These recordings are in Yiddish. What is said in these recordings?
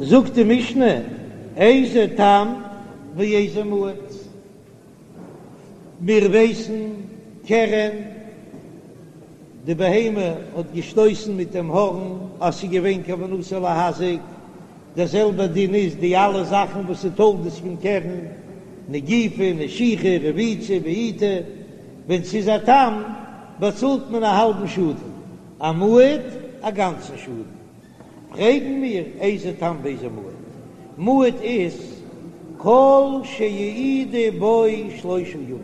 זאגט די משנה, איזה תם ואיזה מועד. מיר ווייסן, קרן, די בהמה האט געשטויסן מיט דעם הארן אז ס'איז געווען כוונתו להזיק, דער זעלבער דין איז די אלע זאכן וואס איז תולדות פון קרן, נגיפה, נשיכה, רביצה, בעיטה, ווען ס'איז א תם באצאלט מען א האלבן שאדן, א מועד א גאנצן שאדן. פרעגן מיר איזה תם ואיזה מועד? מועד איז כל שהעידו בו שלושה ימים,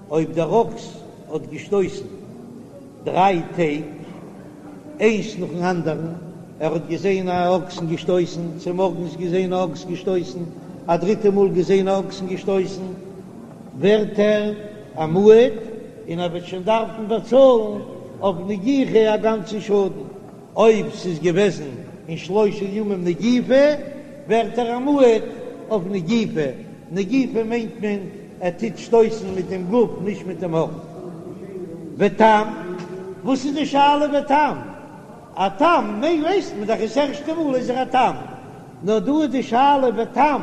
אויב דער אקס האט געשטויסן דריי טעג איינס נאכן אנדערן, ער האט געזען א אקס און געשטויסן, צומארגנס געזען א אקס געשטויסן, א דריטע מאל געזען א אקס און געשטויסן, ווערט ער א מועד און ער וועט שוין דארפן באצאלן אויף נגיחה א גאנצן שאדן. אויב ס'איז געוועזן אין שלושה ימים נגיפה, ווערט ער א מועד אויף נגיפה, נגיפה מיינט מען ער טוט שטויסן מיט דעם גוף נישט מיט דעם הארן. ותם, וואס איז די שאלה ותם? א תם ווייסט מען דאך עס ערשטע מאל איז ער א תם, נאר דא איז די שאלה ותם,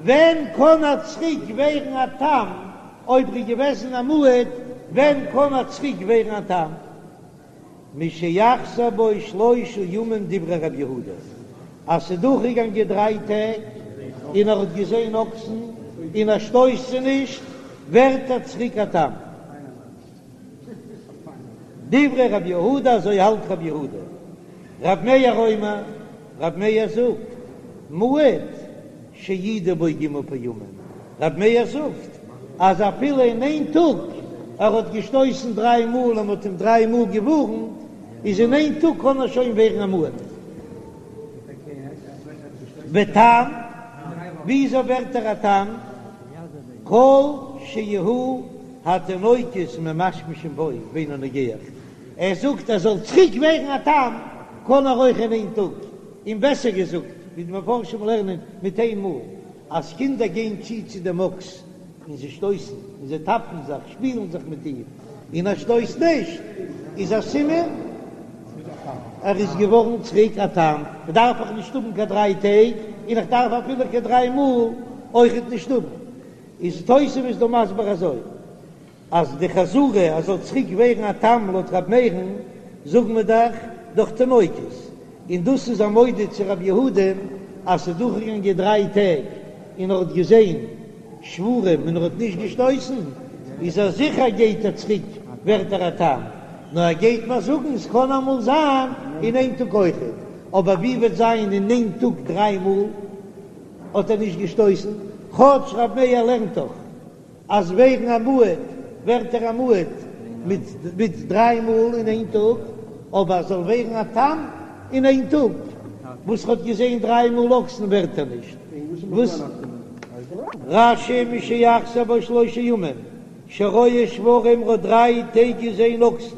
ווען קען ער צוריק ווערן א תם, אויב ר'איז געוועזן א מועד, ווען קען ער צוריק ווערן א תם? משיחזור בו שלושה ימים דברי רב יהודה, אז ס'איז דורכגעגאנגען דריי טעג און ער האט געזען אקסן און ער שטויסט זיי נישט, ווערט ער צוריק א תם. דברי רב יהודה, אזוי האלט רב יהודה. רב מאיר אומר, רב מאיר זאגט, מועד שהעידו בו ג' פעמים, רב מאיר זאגט אז אפילו אין איין טאג ער האט געשטויסן דריי מאל און מ'האט אים דריי מאל געווארנט, איז אין איין טאג קען ער שוין ווערן א מועד. ותם, וויאזוי ווערט ער א תם? כל שיהו התינוקות ממשמשים בו ואינו נוגח, ער זאגט ער זאל צוריק ווערן א תם קען ער אויך אין איין טאג, און בעסער געזאגט ווי די מפרשים לערנען מיט איין מאל, אז קינדער גייען צו צו דעם אקס און זיי שטויסן און זיי טאפן זיך, שפילן זיך מיט אים, און ער שטויסט נישט, איז א סימן ער איז געווארן צוריק א תם, דארף איך נישט האבן קיין דריי טעג, און איך דארף אפילו קיין דריי מאל אויכעט נישט האבן. איז תוספות דא מסביר אזוי. אז די חזרה אז זאל צוריק ווערן א תם לויט ר' מאיר'ן זאגן מיר דאך דורך תינוקות, און דאס איז א מודה צו ר' יהודה'ן אז ס'איז דורכגעגאנגען דריי טעג און ער האט געזען שוורים און ער האט נישט געשטויסן, איז ער זיכער גייט ער צוריק ווערט ער א תם, נאר ער גייט מיר זאגן ס'קען אמאל זיין אין איין טאג אויכעט, אבער ווי וועט זיין אין איין טאג דריי מאל האט ער נישט געשטויסן, כאטש ר' מאיר לערנט דאך. אז ווערן א מועד ווערט ער א מועד מיט מיט דריי מאל אין איין טאג, אבער ער זאל ווערן א תם אין איין טאג וואס ר'האט געזען דריי מאל אקסן ווערט ער נישט. וואס? רש"י משיחזור בו שלושה ימים שרואה שוורים ר'האט דריי טעג געזען אקסן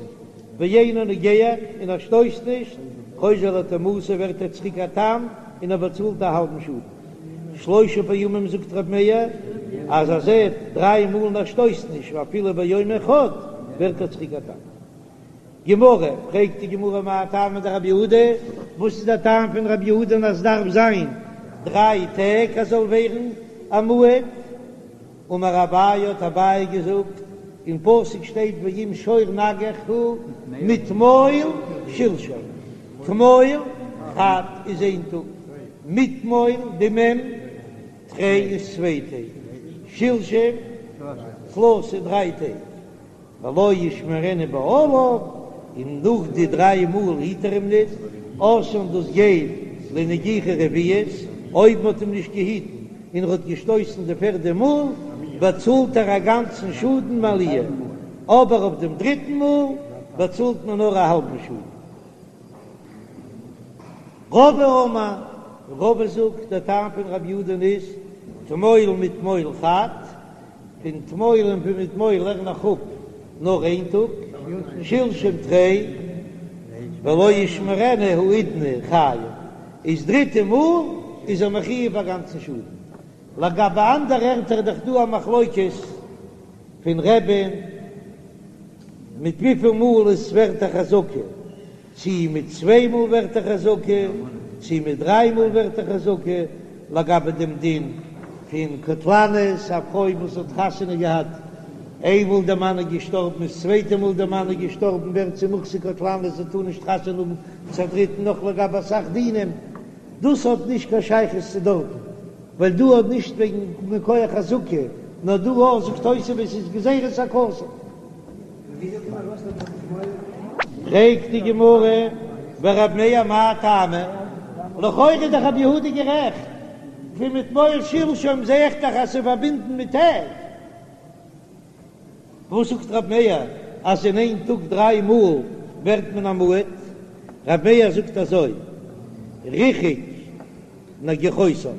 ואינו נוגח און ער שטויסט נישט, חוזר לתמותו ווערט ער צוריק א תם און ער באצאלט א האלבן שאדן. שלושה פעמים זאגט ר' מאיר אז ער זעט דריי מאל און ער שטויסט נישט ואפילו ביום אחד ווערט ער צוריק א תם. גמרא, פרעגט די גמרא מאי טעמא דרבי יהודה, וואס איז דער טעם פון רבי יהודה אז דארף זיין דריי טעג אז זאל ווערן א מועד? אמר אביי האט אביי געזאגט, אין פסוק שטייט ואם שור נגח הוא מתמול שלשום, תמול חד איז איין טאג, מתמול די מ' תרי איז צוויי טעג, שלשום תלתא דריי טעג. ולא ישמרנו בעליו, און נאך די דריי מאל היט ער אים ניט, אתאן דאס גייט לנגיחה רביעית, אויב מ'האט אים נישט געהיטן און ער האט געשטויסן די פערדע מאל, באצאלט ער א גאנצן שאדן מעליה, אבער אויף דעם דריטן מאל באצאלט מען נאר א האלבן שאדן. רבא אמר, רבא זאגט, דער טעם פון רב יהודה'ן איז, תמול מתמול חד, פון תמול און פון מתמול לערן איך אפ נאר איין טאג, שלשום תרי, ולא ישמרנו האידנא חייב, איז דריטע מאל איז ער מחויב א גאנצן שאדן. לגבי אנדערע ערטער איז דאך דא א מחלוקת פון רבי'ן מיט וויפיל מאל עס ווערט א חזקה, צי מיט צוויי מאל ווערט א חזקה. צי מיט דריי מאל ווערט א חזקה, לגבי דעם דין פון קטלנית, א פרוי וואס האט חתונה געהאט, איינמאל דער מאן איז געשטארבן איז צווייטע מאל דער מאן איז געשטארבן ווערט זי מוחזק קטלנית, זי טאר נישט חתונה האבן צו א דריטן נאך לגבי אסאך דינים, דאס האט נישט קיין שייכות צו דארטן, ווייל דא האט נישט וועגן מכח חזקה, נאר דא אויך זאגט תוספות איז גזירת הכתוב. פרעגט די גמרא, ורב מאיר מאי טעמא? לכאורה איז דאך רבי יהודה גערעכט, פון מתמול שלשום זע איך דאך אז ס'איז פארבינדן מיט טעג. וואס זאגט רב מאיר אז אין איין טאג דריי מאל ווערט מען א מועד? רב מאיר זאגט אזוי, ריחק נגיחותיו,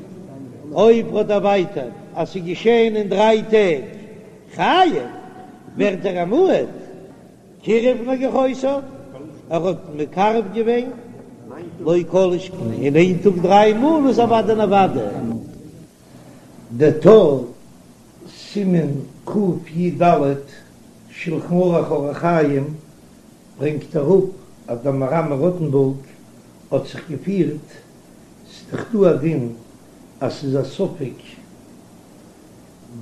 אויב האט ער דערווייטערט אז ס'איז געשען אין דריי טעג חייב, ווערט ער א מועד, קירב נגיחותיו, ער האט מקרב געווען, לא כל שכן, אין איין טאג דריי מאל איז אוודאי און אוודאי. דער טור, סימן קי"ד, שלחן ערוך אורח חיים, ברענגט אראפ אז דער מהר"ם מרוטנבורג האט זיך געפירט, ס'איז דאך דא א דין אז ס'איז א ספק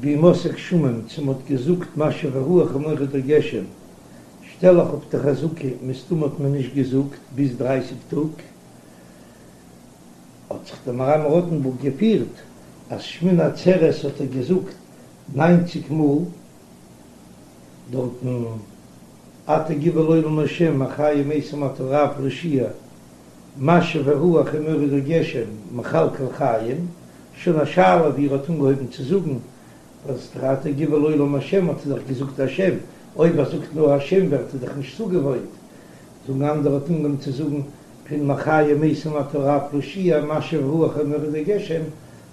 בימות הגשמים צו מ'האט געזאגט משיב הרוח ומוריד הגשם, שטעל איך אויף די חזקה מסתמא האט מען נישט געזאגט ביז דרייסיג טאג, האט זיך דער מהר"ם מרוטנבורג געפירט אז שמיני עצרת האט ער געזאגט ניינציג מאל דארטן אתה גבור לעולם השם מחיה מתים אתה רב להושיע משיב הרוח ומוריד הגשם מכלכל חיים, שוין א שאלה ווי ער האט אנגעהויבן צו זאגן אז אתה גבור לעולם השם האט ער דאך געזאגט השם, אויב ער זאגט נאר השם ווערט ער דאך נישט צוגעוואוינט, זאגן אנדערע האט אנגעהויבן צו זאגן פון מחיה מתים אתה רב להושיע משיב רוח ומוריד הגשם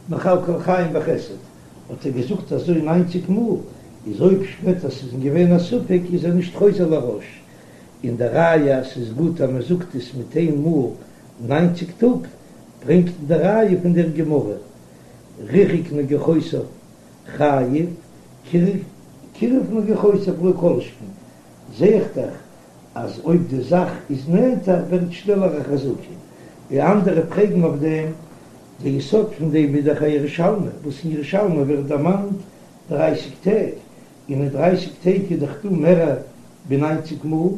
מכלכל חיים בחסד האט ער געזאגט אזוי ניינציג מאל, איז אויב שפעטער ס'איז געווען א ספק איז ער נישט חוזר לראש, און די ראיה אז ס'איז גוט אז מ'זאגט עס מיט איין מאל ניינציג טאג ברענגט די ראיה פון דער גמרא ריחק נגיחותיו חייב קירב נגיחותיו לא כל שכן זעה איך דאך אז אויב די זאך איז נענטער ווערט שנעלער א חזקה. די אנדערע פרעגן אויף דעם, די יסוד פון דעם איז דאך א ירושלמי, וואס אין ירושלמי ווערט דערמאנט דרייסיג טעג, און אין דרייסיג טעג איז דאך דא מער ווי ניינציג מאל,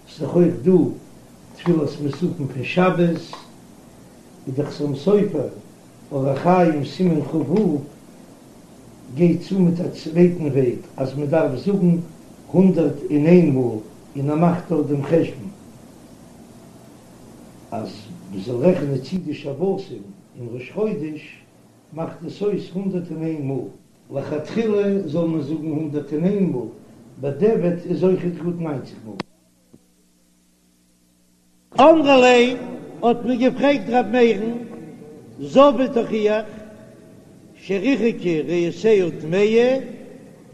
ס'איז דאך אויך דא תפילת מוספין פון שבת, איז דאך חתם סופר אורח חיים סימן כ"ו גייט צו מיט א צווייטן וועג אז מען דארף זאגן 101 מאל און ער מאכט דארט דעם חשבון אז מען זאל רעכענען צו די שבתים און ראש חודש מאכט עס אויס 101 מאל. לכתחילה זאל מען זאגן 101 מאל, בדיעבד איז אויכעט גוט ניינציג מאל. אמרו ליה, האט מען געפרעגט ר' מאיר'ן, זבה תוכיח שריחקה ריאותיה טמאה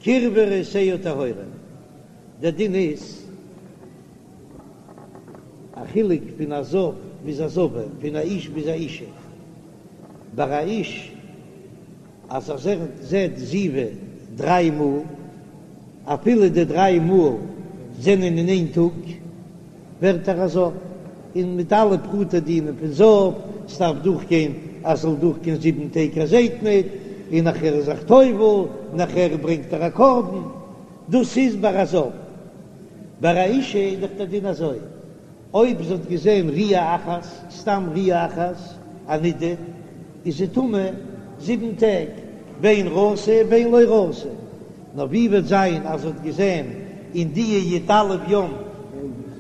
קירבה ריאותיה טהורה, דער דין איז א חילוק פון א זב ביז א זבה, פון א איש ביז א אישה, ביי א איש אז ער זעט זיבה דריי מאל, אפילו די דריי מאל זענען אין איין טאג, ווערט ער א זב, און מיט אלע פרטי דינים פון זב, ס'דארף דורכגיין אז ס'זאל דורכגיין זיבן טעג ער זעט ניט, און נאכער איז זיך טובל, נאכער ברענגט ער א קרבן, דאס איז ביי א זב. ביי א אישה איז דאך דער דין אזוי, אויב זי האט געזען ראיה אחת, סתם ראיה אחת, א נידה, איז זי טמא זיבן טעג, בין ראתה בין לא ראתה. נאר ווי וועט זיין אז זי האט געזען אין די י"א יום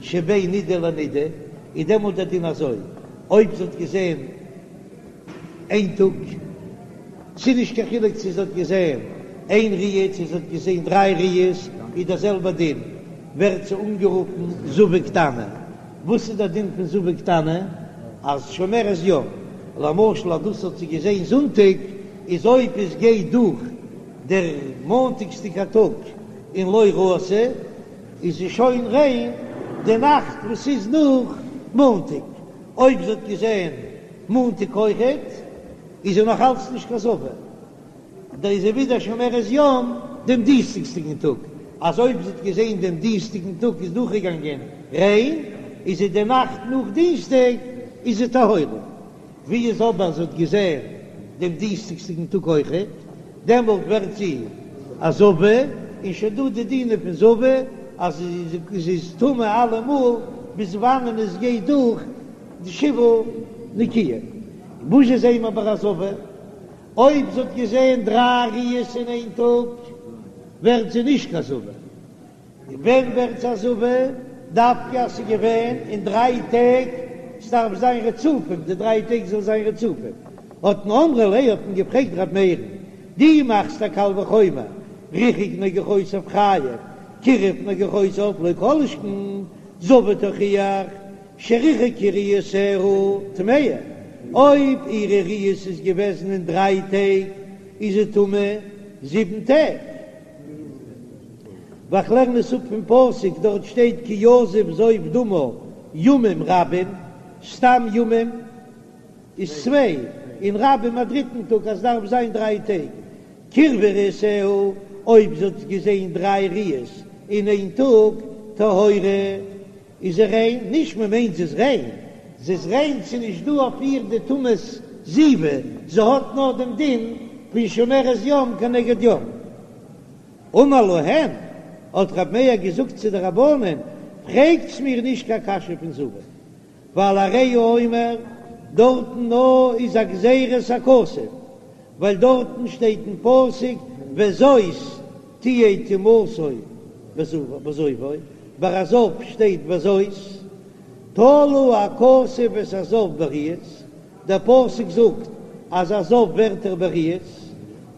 שבין נידה לנידה, איז דעמאלט דער דין אזוי, אויב זי האט געזען איין טאג, ס'איז נישט קיין חילוק צו זי האט געזען איין ראיה צו זי האט געזען דריי ראיות, איז דער זעלבער דין, ווערט זי אנגערופן זבה קטנה. וואס איז דער דין פון זבה קטנה? אז שומרת יום, למשל אז דאס האט זי געזען זונטאג, איז אויב עס גייט דורך דער מאנטאגסדיגער טאג און לא ראתה, איז זי שוין ריין די נאכט וואס איז נאך מאנטאג. אויב זי האט געזען מאנטאג אויכעט, איז זי נאך אלץ נישט קיין זבה, דאן איז זי ווידער שומרת יום דעם דינסטאגסדיגן טאג, אז אויב זי האט געזען דעם דינסטאגן טאג איז דורכגעגאנגען ריין, איז זי די נאכט נאך דינסטאג איז זי טהורה. ווי איז אבער זי האט געזען דעם דינסטאג'דיגן טאג אויכעט, דעמאלט ווערט זי א זבה, און שוין דא די דינים פון זבה אז זי איז טמא אלעמאל ביז וואנען עס גייט דורך די שבעה נקיים. וואס זשע זעען מיר ביי א זבה? אויב זי האט געזען דריי ראיות אין איין טאג ווערט זי נישט קיין זבה. ווען ווערט זי א זבה? דווקא אז ס'איז געווען אין דריי טעג, ס'דארף זיין רצופים, די דריי טעג זאל זיין רצופים. האט מען אמרו ליה האט מען געפרעגט ר' מאיר'ן, דו מאכסט א קל וחומר, ריחק נגיחותיו חייב, קירב נגיחותיו לא כל שכן, זבה תוכיח, שריחקה ראיותיה טמאה, אויב אירע ראיות איז געוועזן אין דריי טעג איז זי טמא זיבן טעג. ווייל כ'לערן עס אפ פון פסוק, דארט שטייט כי יזוב זוב דמה ימים רבים, סתם ימים איז צוויי, און רבים א דריטן טאג אז ס'דארף זיין דריי טעג. קירבה ראיותיה, אויב זי האט געזען דריי ראיות אין איין טאג, טהורה. איז זי ריין? נישט מען מיינט זי איז ריין, זי איז ריין ס'איז נישט דא אויף איר די טומאת זיבה, זי האט נאר דעם דין פון שומרת יום כנגד יום. אמר להם, האט רב מאיר געזאגט צו די רבנן, פרעגטס מיר נישט קיין קשיא פון זבה, ווייל הרי הוא אומר, דארטן נאר איז א גזירת הכתוב, ווייל דארטן שטייט אין פסוק וזאת תהיה טומאתו בזובו, ביי א זב שטייט וזאת, תלה הכתוב את הזב בראיות, דער פסוק זאגט אז א זב ווערט ער בראיות,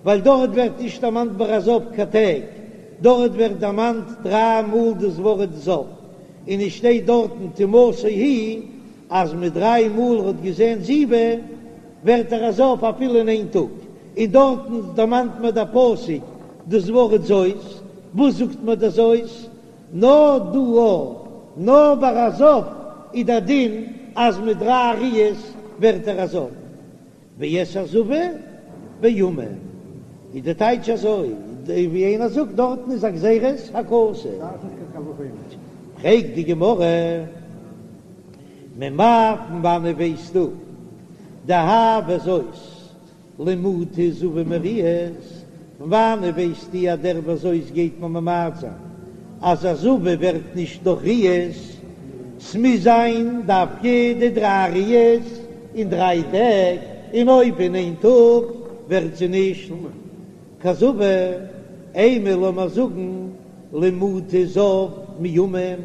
ווייל דארט ווערט נישט דערמאנט ביי א זב קיין טעג, דארט ווערט דערמאנט דריי מאל דאס ווארט זב, און עס שטייט דארטן טומאתו היא אז מיט דריי מאל ער האט געזען זיבה ווערט ער א זב אפילו אין איין טאג, און דארטן דערמאנט מיר דער פסוק דאס ווארט זאת, וואס זאגט מיר דער זאת? נאר דא א, נאר ביי א זב איז דער דין אז מיט דריי ראיות ווערט ער א זב. ואת הזבה בימים איז די טייטש אזוי, ווי איינער זאגט דארטן איז א גזירת הכתוב. פרעגט די גמרא, ממאי פון וואנעט ווייסטו דהאי וזאת למעוטי זבה מראיות, פון וואנעט ווייסטו אז דער וזאת גייט מען ממעט זיין אז א זבה ווערט נישט דורך ראיות, ס'מוז זיין דווקא די דריי ראיות אין דריי טעג, און אויב אין איין טאג ווערט זי נישט קיין זבה, אימא לאמער זאגן למעוטי זב מימים,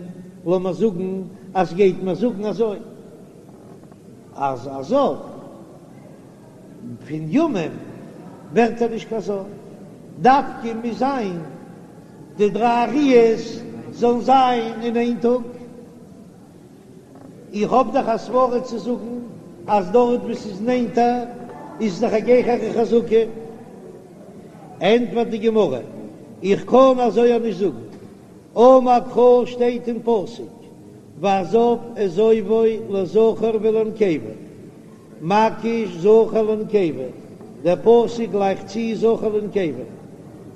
לאמער זאגן אז גייט מען זאגן אזוי אז א זב. פון ימים ווערט ער נישט קיין זב, דווקא מוז זיין די דריי ראיות זאלן זיין אין איין טאג. איך האב דאך א סברא צו זאגן אז דארט וואו ס'איז נענטער איז דאך א גרעסערע חזקה. ענטפערט די גמרא, איך קען אזוי אויך נישט זאגן, אמר קרא שטייט אין פסוק והזב את זובו לזכר ולנקבה. מקיש זכר לנקבה, דער פסוק גלייכט צו זכר לנקבה,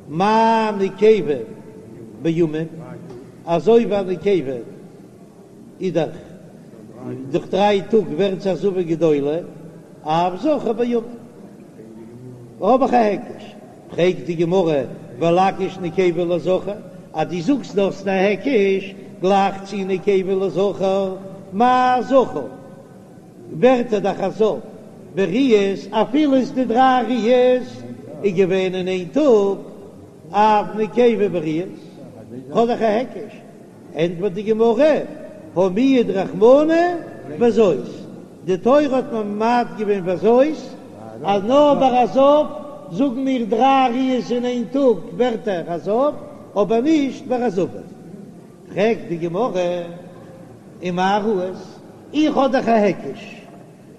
מה נקבה בימים, אזוי ווי א נקבה איז דאך דורך דריי טאג ווערט זי א זבה גדולה, אף זכר בימים. האב איך א היקש, פרעגט די גמרא ולקיש נקבה לזכר, אז דו זאגסט דו האסט א היקש, גלייך צו נקבה לזכר, מה זכר? ווערט ער דאך א זב בראיות אפילו איז די דריי ראיות איז געווען אין איין טאג אף נקבה בראיות האב איך א היקש, ענטפערט די גמרא הא מיעט רחמנא וזאת, די תורה האט ממעט געווען וזאת אז נאר ביי א זב זאגן מיר דריי ראיות אין איין טאג ווערט ער א זב אבער נישט ביי א זבה, פרעגט די גמרא ומה ראית? איך האב דאך א היקש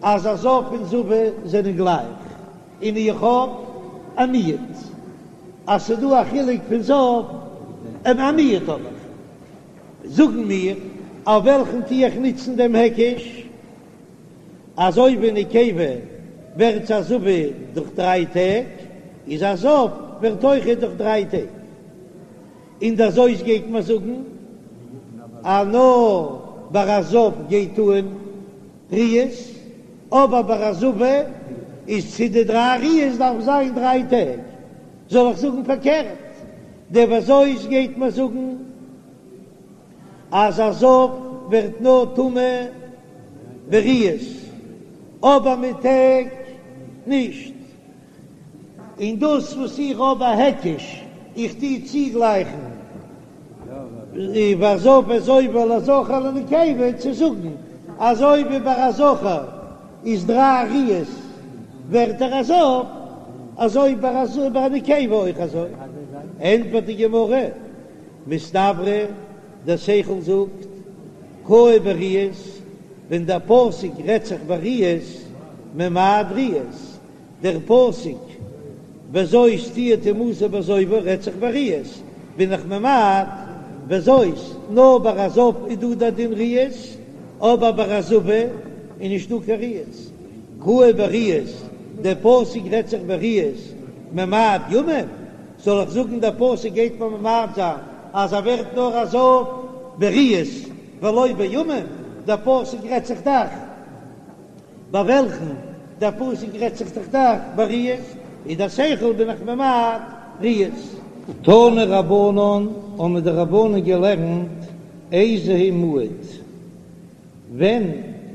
אז א זב און זבה זענען גלייך, און איך האב א מיעוט אז ס'דא א חילוק פון זב און א מיעוט האב איך. זאגן מיר, אויף וועלכן טו איך נוצן דעם היקש? אזוי ווי נקבה ווערט א זבה דורך דריי טעג, איז א זב ווערט אויכעט דורך דריי טעג. און דער זאת גייט מען זאגן אז נאר ביי א זב גייט אן ראיות. אבער ביי א זבה איז צו די דריי ראיות דארף זיין דריי טעג, זאל איך זאגן פארקערט, דער וזאת גייט מיר זאגן אז א זב ווערט נאר טמא בראיות אבער מיט טעג נישט. און דאס וואס איך האב א היקש, איך טו צוגלייכן והזב את זובו לזכר ולנקבה צו זאגן אזוי ווי ביי א זכר איז דריי ראיות ווערט ער א זב, אזוי ביי א נקבה אויך אזוי. ענטפערט די גמרא, מסתברא, דער שכל זאגט, קאי בראיות, ווען דער פסוק רעדט זיך בראיות, ממעט ראיות, דער פסוק וזאת תהיה טומאתו בזובו רעדט זיך בראיות, בין איך ממעט וזאת, נאר ביי א זב איז דא דער דין ראיות, אבער ביי א זבה איז נישט דא קיין ראיות. קאי בראיות, דער פסוק רעדט זיך בראיות, ממעט ימים, זאל איך זאגן דער פסוק גייט מיר ממעט זיין אז ער ווערט נאר א זב בראיות ולא בימים, דער פסוק רעדט זיך דאך. ביי וועלכן דער פסוק רעדט זיך דאך דאך בראיות, איז דער שכל בין איך ממעט ראיות. תנו רבנן, האבן די רבנן געלערנט איזהו מועד, ווען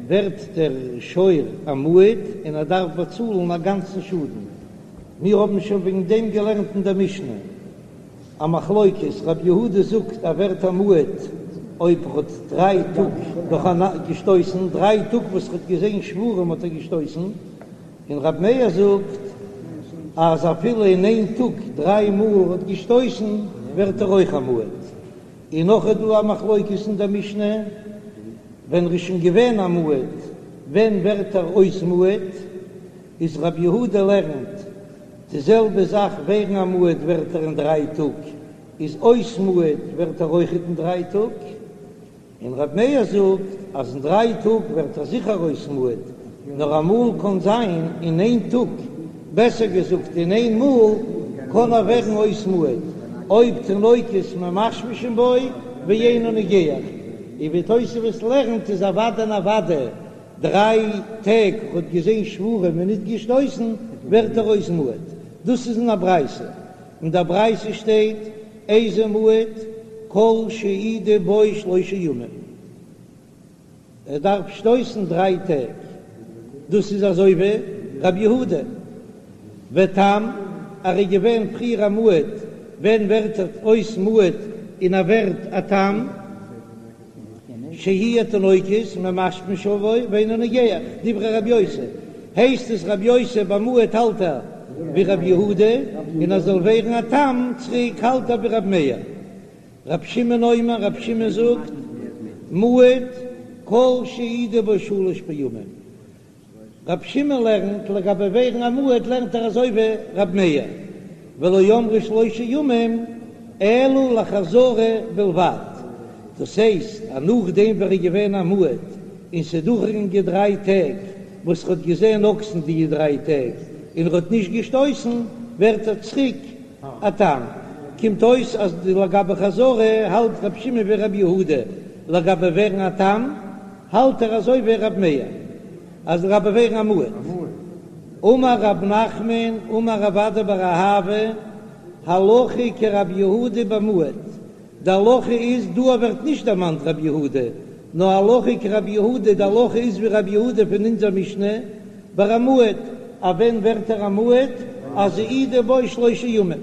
ווערט דער שור א מועד און ער דארף באצאלן א גאנצן שאדן, מיר האבן שוין וועגן דעם געלערנט אין דער משנה. א מחלוקת, רב יהודה זאגט ער ווערט א מועד אויב ער האט דריי טאג נאכאנאנד געשטויסן, דריי טאג וואס ער האט געזען שוורים האט ער געשטויסן, און רב מאיר זאגט אז אפילו אין איין טאג דריי מאל האט געשטויסן ווערט ער אויך א מועד. און נאך איז דא א מחלוקת אין דער משנה, ווען ער איז שוין געווען א מועד, ווען ווערט ער אויס מועד, איז רב יהודה לערנט די זעלבע זאך ווערן א מועד ווערט ער אין דריי טאג, איז אויס מועד ווערט ער אויכעט אין דריי טאג, און ר' מאיר זאגט אז אין דריי טאג ווערט ער זיכער אויס מועד, נאר אמאל קען זיין אין איין טאג, בעסער געזאגט אין איין מאל קען ער ווערן אויס מועד, אויב תינוקות ממשמשין בו ואינו נוגח, און ווי תוספות לערנט איז אוודאי און אוודאי דריי טעג האט געזען שוורים און ניט געשטויסן, ווערט ער אויס מועד. דאס איז אין א ברייתא. אין דער ברייתא שטייט, איזהו מועד, כל שהעידו בו שלושה ימים. ער דארף שטויסן דריי טעג. דאס איז אזוי ווי רבי יהודה. ותם, ער איז געווען פריער א מועד, ווען ווערט ער אויס מועד און ער ווערט א תם? שיהו התינוקות ממשמשין בו ואינו נוגח, דברי רבי יוסי, הייסט עס רבי יוסי ביי מועד האלט ער ווי רבי יהודה, און ער זאל ווערן א תם צוריק האלט ער ווי רבי מאיר. רבי שמעון אומר, רבי שמעון זאגט, מועד כל שהעידו בו שלש פעמים. רבי שמעון לערנט, לגבי ווערן א מועד לערנט ער אזוי ווי רבי מאיר, ולא אמרו שלושה ימים אלא לחזרה בלבד, דאס הייסט אז נאכדעם ווען ער איז געווען א מועד און ס'איז דורכגעגאנגען דריי טעג וואס ער האט געזען אקסן די דריי טעג און ער האט נישט געשטויסן ווערט ער צוריק א תם, קומט אויס אז לגבי חזרה האלט רבי שמעון ווי רבי יהודה, לגבי ווערן א תם האלט ער אזוי ווי ר' מאיר אז לגבי ווערן א מועד. אמר רב נחמן אמר רב אדא בר אהבה הלכה כרבי יהודה במועד, די הלכה איז, דא ווערט נישט דערמאנט רבי יהודה, נאר הלכה כרבי יהודה, די הלכה איז ווי רבי יהודה פון אונזער משנה ביי א מועד, אז ווען ווערט ער א מועד? אז העידו בו שלושה ימים,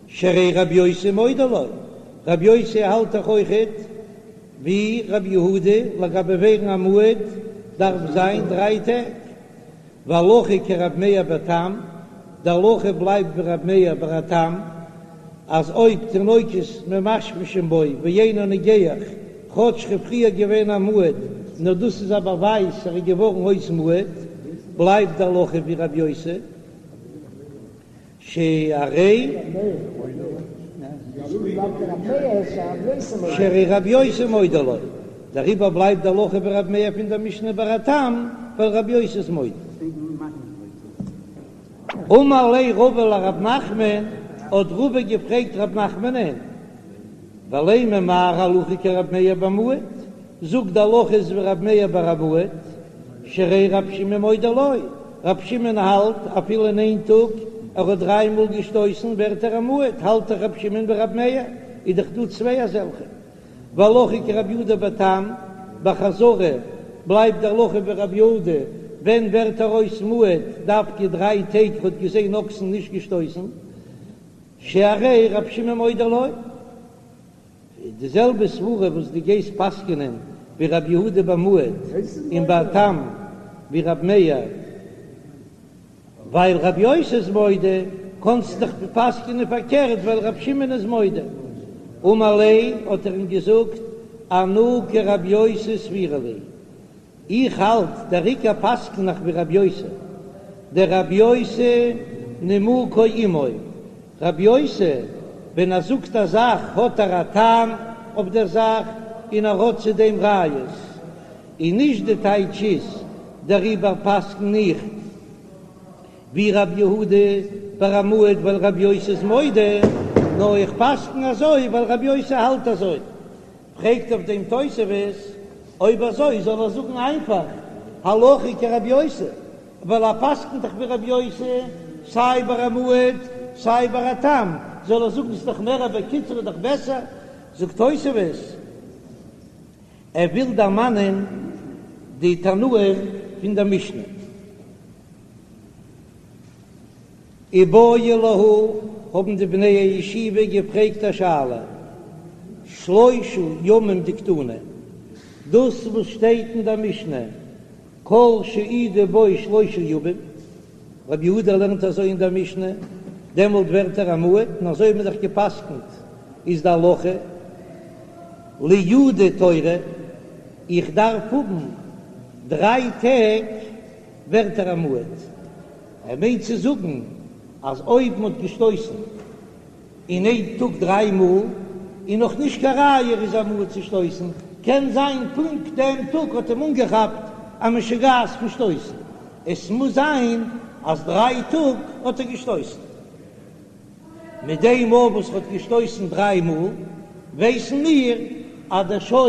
שהרי רבי יוסי מודה לו, רבי יוסי האלט דאך אויכעט ווי רבי יהודה לגבי ווערן א מועד דארף זיין דריי טעג, והלכה כרבי מאיר בתם, די הלכה בלייבט ווי רבי מאיר ביי א תם, אז אויב תינוקות ממשמשין בו ואינו נוגח, כאטש ער איז פריער געווען א מועד, נאר דאס איז א באווייז ער איז געווארן אויס מועד, בלייבט די הלכה ווי רבי יוסי. שהרי שהרי רבי יוסי מודה לו, דעריבער בלייבט די הלכה ווי רבי מאיר פון דער משנה ביי א תם, ווייל רבי יוסי איז מודה. אמר ליה רבא לרב נחמן, האט רבא געפרעגט רב נחמנען, ולימא מר הלכה כרבי מאיר במועד, זאג די הלכה איז ווי רבי מאיר ביי א מועד, שהרי. שהרי רב שמעון מודה לו, רב שמעון האלט אפילו אין איין טאג ער האט דריי מאל געשטויסן ווערט ער א מועד, האלט דאך רב שמעון ווי רב מאיר, איז דאך דא צוויי אזעלכע. והלכה כרב יהודה בתם, ביי חזרה בלייבט די הלכה ווי רב יהודה, ווען ווערט ער אויס מועד דווקא דריי טעג האט געזען אקסן נישט געשטויסן, שהרי רב שמעון מודה לו. די זעלבע סברה וואס דו גייסט פסק'נען ווי רב יהודה ביי מועד און ביי תם ווי רב מאיר, ווייל רב יוסי איז מודה, קאנסטו דאך פסק'נען פארקערט ווייל רב שמעון איז מודה. אמר ליה האט ער אים געזאגט, אנא כרב יוסי סבירא לי, איך האלט דער עיקר פסק'ן איך ווי רב יוסי, דרב יוסי נימוקו עמו, רב יוסי ווען ער זאגט א זאך האט ער א טעם אויף דער זאך און ער האט צו דעם ראיות, און נישט די טייטש איז דעריבער פסק'ן איך ווי רב יהודה ביי א מועד ווייל רב יוסי איז מודה, נאר איך פסק'ן אזוי ווייל רב יוסי האלט אזוי. פרעגט אויף דעם תוספות, אויב אזוי זאל ער זאגן איינפאך הלכה כרבי יוסי, ווייל ער פסק'נט דאך ווי רבי יוסי סיי ביי א מועד סיי ביי א תם, זאל ער זאגן ס'איז דאך מער בקיצור איז דאך בעסער, זאגט תוספות, ער וויל דערמאנען די תנאים פון דער משנה. איבעיא להו, האבן די בני הישיבה געפרעגט א שאלה, שלושה ימים דקתני, דאס וואס שטייט אין דער משנה, כל שהעידו בו שלושה ימים, רבי יהודה לערנט אזוי אין דער משנה, דעמאלט ווערט ער א מועד, און אזוי האט מען דאך גע'פסק'נט, איז די הלכה, לייעודי תורא, איך דארף האבן דריי טעג ווערט ער א מועד. ער מיינט צו זאגן אז אויב מ'האט געשטויסן אין איין טאג דריי מאל איז נאך נישט קיין ראיה ער איז א מועד צו שטויסן, קען זיין פונקט דעם טאג האט אים אנגעכאפט א משוגעת פון שטויסן, עס מוז זיין אז דריי טאג האט ער געשטויסן. מיט דעם מאל וואס ער האט געשטויסן דריי מאל ווייסן מיר אז דער שור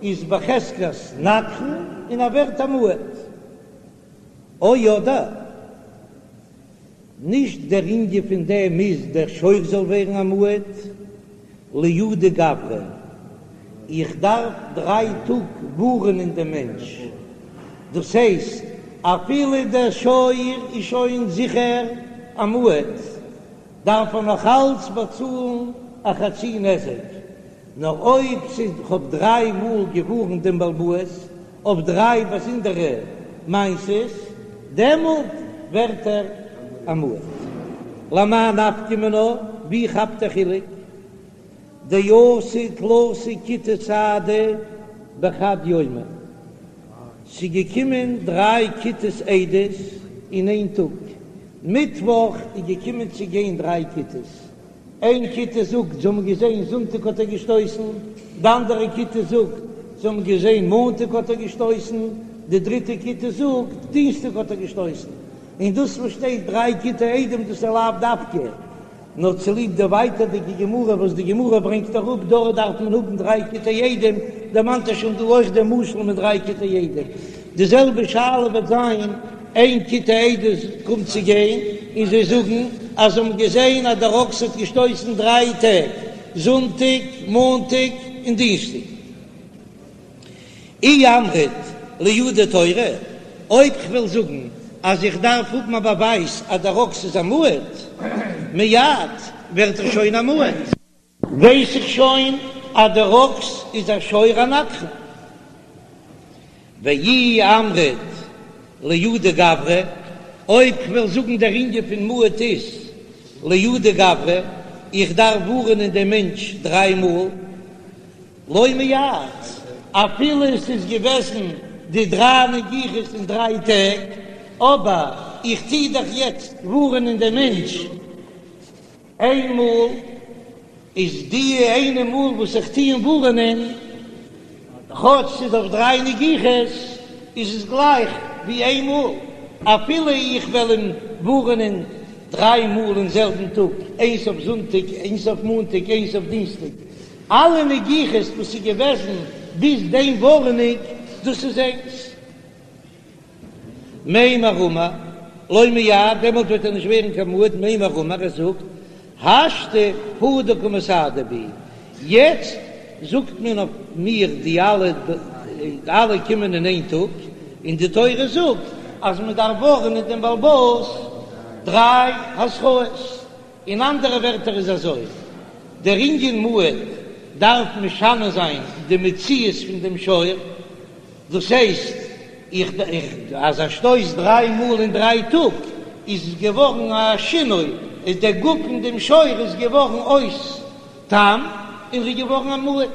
איז בחזקת נגחן און ער ווערט א מועד. או אדער נישט דער ענין פון דעם איז דער שור זאל ווערן א מועד, לייעודי גברא, איך דארף דריי טאג ווארענען דעם מענטש, דאס הייסט אפילו דער שור איז שוין זיכער א מועד, דארף ער נאך אלץ באצאלן א חצי נזק, נאר אויב ס'איז כ'האב דריי מאל געווארנט דעם בעל הבית אויף דריי באזונדערע מעשות, דעמאלט ווערט ער א מועד. למאי נפקא מינה, ווי כאפט דער חילוק? דאתו תלתא כיתי סהדי בחד יומא, ס'איז געקומען דריי כיתות עדות אין איין טאג, מיטוואך איז געקומען צו גיין דריי כיתות, איין כיתה זאגט זיי האבן געזען זונטאג האט ער געשטויסן, די אנדערע כיתה זאגט זיי האבן געזען מאנטאג האט ער געשטויסן, די דריטע כיתה זאגט דינסטאג האט ער געשטויסן, און דאס וואס שטייט דריי כיתי עדים דאס איז לאו דווקא נאר צוליב די ווייטערדיגע גמרא וואס די גמרא ברענגט אראפ דארט דארף מען האבן דריי כיתי עדים, דערמאנט ער שוין דא אויך דעם משל מיט דריי כיתי עדים. די זעלבע שאלה וועט זיין איין כיתה עדות קומט צו גיין און זיי זאגן אז זיי האבן געזען אז דער אקס האט געשטויסן דריי טעג, זונטאג, מאנטאג און דינסטאג. אי אמרת לייעודי תורא, אויב כ'וועל זאגן אז איך דארף האבן א באווייז אז דער אקס איז א מועד, מיד ווערט ער שוין א מועד. ווייס איך שוין אז דער אקס איז א שור הנגחן. ואי אמרת לייעודי גברא, אויב כ'וועל זאגן דער ענין פון מועד איז לייעודי גברא, איך דארף ווארענען דעם מענטש דריי מאל, לא מיעט, אפילו עס איז געוועזן די דריי נגיחות אין דריי טעג, אבער איך טוה דאך יעצט ווארענען דעם מענטש איין מאל איז די איינע מאל וואס איך טוה אים ווארענען, כאטש ס'איז אויף דריי נגיחות, איז עס גלייך ווי איין מאל, אפילו איך וועל אים ווארענען דריי מאל אין זעלבן טאג, איינס אויף זונטאג, איינס אויף מאנטאג, איינס אויף דינסטאג, אלע נגיחות וואס איז געוועזן ביז דעם ווארענונג, דאס איז איינס. מימר אמר, לא מייעד, דעמאלט וועט ער נישט ווערן קיין מועד, מימר אמר, ער זאגט, השתא הוא דקא מסהדו בי, יעצט זאגט מען אויף מיר די אלע, אלע קומען אין איין טאג, און די תורה זאגט אז מען דארף ווארענען דעם בעל הבית דריי התראות. אין אנדערע ווערטער איז אזוי, דער ענין מועד דארף משנה זיין די מציאות פון דעם שור, דאס הייסט איך איך אז א שטויס דריי מאל אין דריי טאג איז געווארן א שינוי, איז דער גוף פון דעם שור איז געווארן אויס תם און ר'איז געווארן א מועד,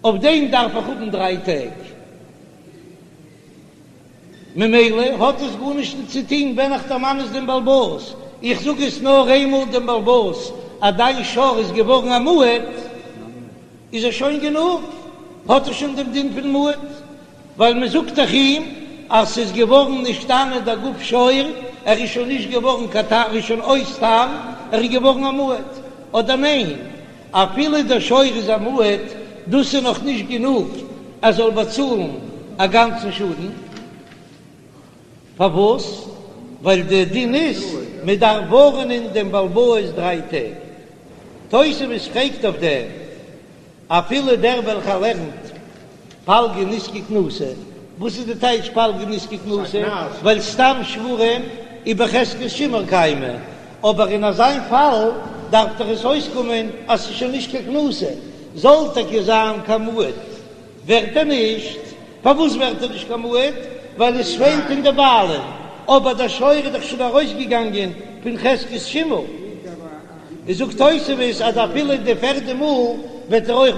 אויף דעם דארף איך האבן דריי טעג. ממילא האט עס גארנישט צו טון ווען איך דערמאן עס דעם בעל הבית, איך זאג עס נאר איינמאל דעם בעל הבית אז דיין שור איז געווארן א מועד, איז עס שוין גענוג, האט ער שוין דעם דין פון מועד, ווייל מען זאגט דאך אים אז ס'איז געווארן נשתנה דער גוף שור, ער איז שוין נישט געווארן קיין תם, ער איז שוין אויס תם, ער איז געווארן א מועד, אדער ניין? אפילו דער שור איז א מועד, דאס איז נאך נישט גענוג ער זאל באצאלן א גאנצן שאדן. פארוואס? ווייל דער דין איז מען דארף ווארענען דעם בעל הבית דריי טעג. תוספות פרעגט אויף דעם, אפילו דער וועלכער לערנט פלגא נזקא קנסא, וואס איז די טייטש פלגא נזקא קנסא? ווייל סתם שוורים איז בחזקת שימור קיימי, אבער אין אזיין פאל דארף דאך עס אויסקומען אז ס'איז שוין נישט קיין קנסא, זאל טאקע זיין קיין מועד ווערט ער נישט, פארוואס ווערט ער נישט קיין מועד? ווייל עס פעלט אין די בעלים, אבער דער שור איז דאך שוין ארויסגעגאנגען פון חזקת שימור. איז זאגט תוספות אז אפילו די פערדע מאל וועט ער אויך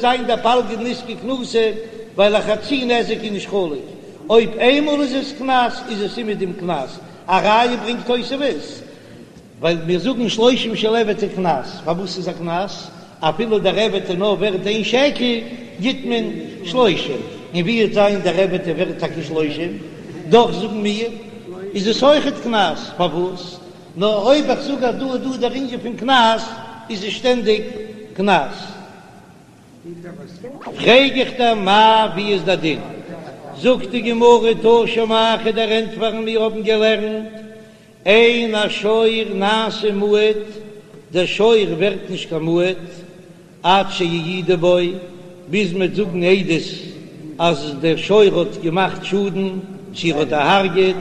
זיין דער פלגא נזקא קנסא, ווייל א חצי נזק איז נישט חלוק, אויב איינמאל איז עס קנס איז עס אומעדום קנס, א ראיה ברענגט תוספות, ווייל מיר זאגן שלושים של עבד איז קנס, פארוואס איז א קנס? אפילו דער עבד איז נאר ווערט איין שקל גיט מען שלושים, און ווי וועט זיין דער עבד איז ווערט טאקע שלושים, דאך זאגן מיר איז עס אויכעט קנס, פארוואס? נאר אויב איך זאג אז דא איז דא דער ענין פון קנס, איז עס שטענדיג קנס. פרעג איך דיר מאי ווי איז דער דין? זאגט די גמרא תא שמע כ'וועל דיר ענטפערן מיר האבן געלערנט אין השור נעשה מועד, דער שור ווערט נישט קיין מועד עד שיעידו בו, ביז מ'וועט זאגן עדות אז דער שור האט געמאכט שאדן, צו ער האט דערהרגעט,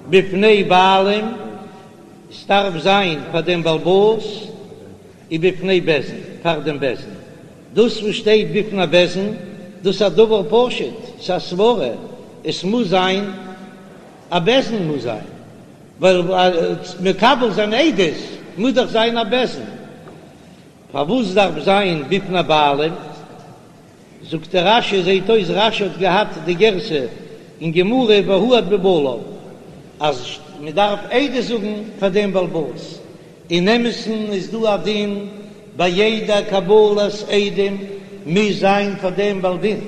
בפני בעלים, ס'דארף זיין פאר דעם בעל הבית, ובפני בית דין, פאר דעם בית דין. דאס וואס שטייט בפני בית דין, דאס איז א דבר פשוט, ס'איז א סברה, עס מוז זיין א בית דין מוז זיין, ווייל מקבל זיין עדות מוז דאך זיין א בית דין. פארוואס דארף זיין בפני בעלים? זאגט דער רש"י, זעהט אויס רש"י האט געהאט די גירסא אין גמרא והועד בבעליו, אז מען דארף עדות זאגן פאר דעם בעל הבית, אין אמת'ן איז דא א דין ביי יעדע קבלת עדים מוז זיין פאר דעם בעל דין,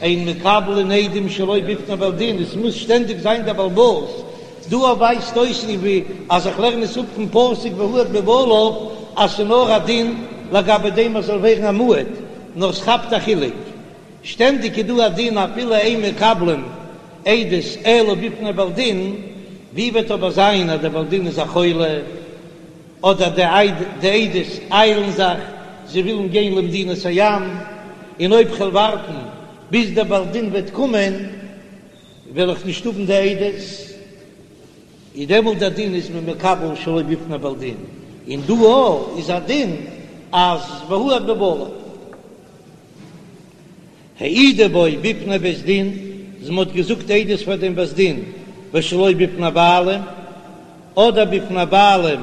אין מקבלין עדים שלא בפני בעל דין, עס מוז שטענדיג זיין דער בעל הבית, דא ווייזט אויס ווי אז איך לערן עס אפ פון פסוק והועד בבעליו אז ס'איז נאר א דין לגבי דעם אז זאל ווערן א מועד, נאר ס'כאפט א חילוק, שטענדיג איז דא א דין אפילו אין מקבלין עדות אלא בפני בעל דין, ווי וועט אבער זיין אז דער בעל דין איז א חולה, אדער די עדות איילן זיך, זיי ווילן גיין למדינת הים, און אויב כ'וועל ווארטן ביז דער בעל דין וועט קומען וועל איך נישט האבן די עדות, איז דעמאלט דער דין איז מען מקבל שלא בפני בעל דין, און דא אויך איז א דין אז והועד בבעליו. העידו בו בפני בית דין, אז מען האט געזאגט עדות פאר דעם בית דין ושלא בפני בעלים, אדער בפני בעלים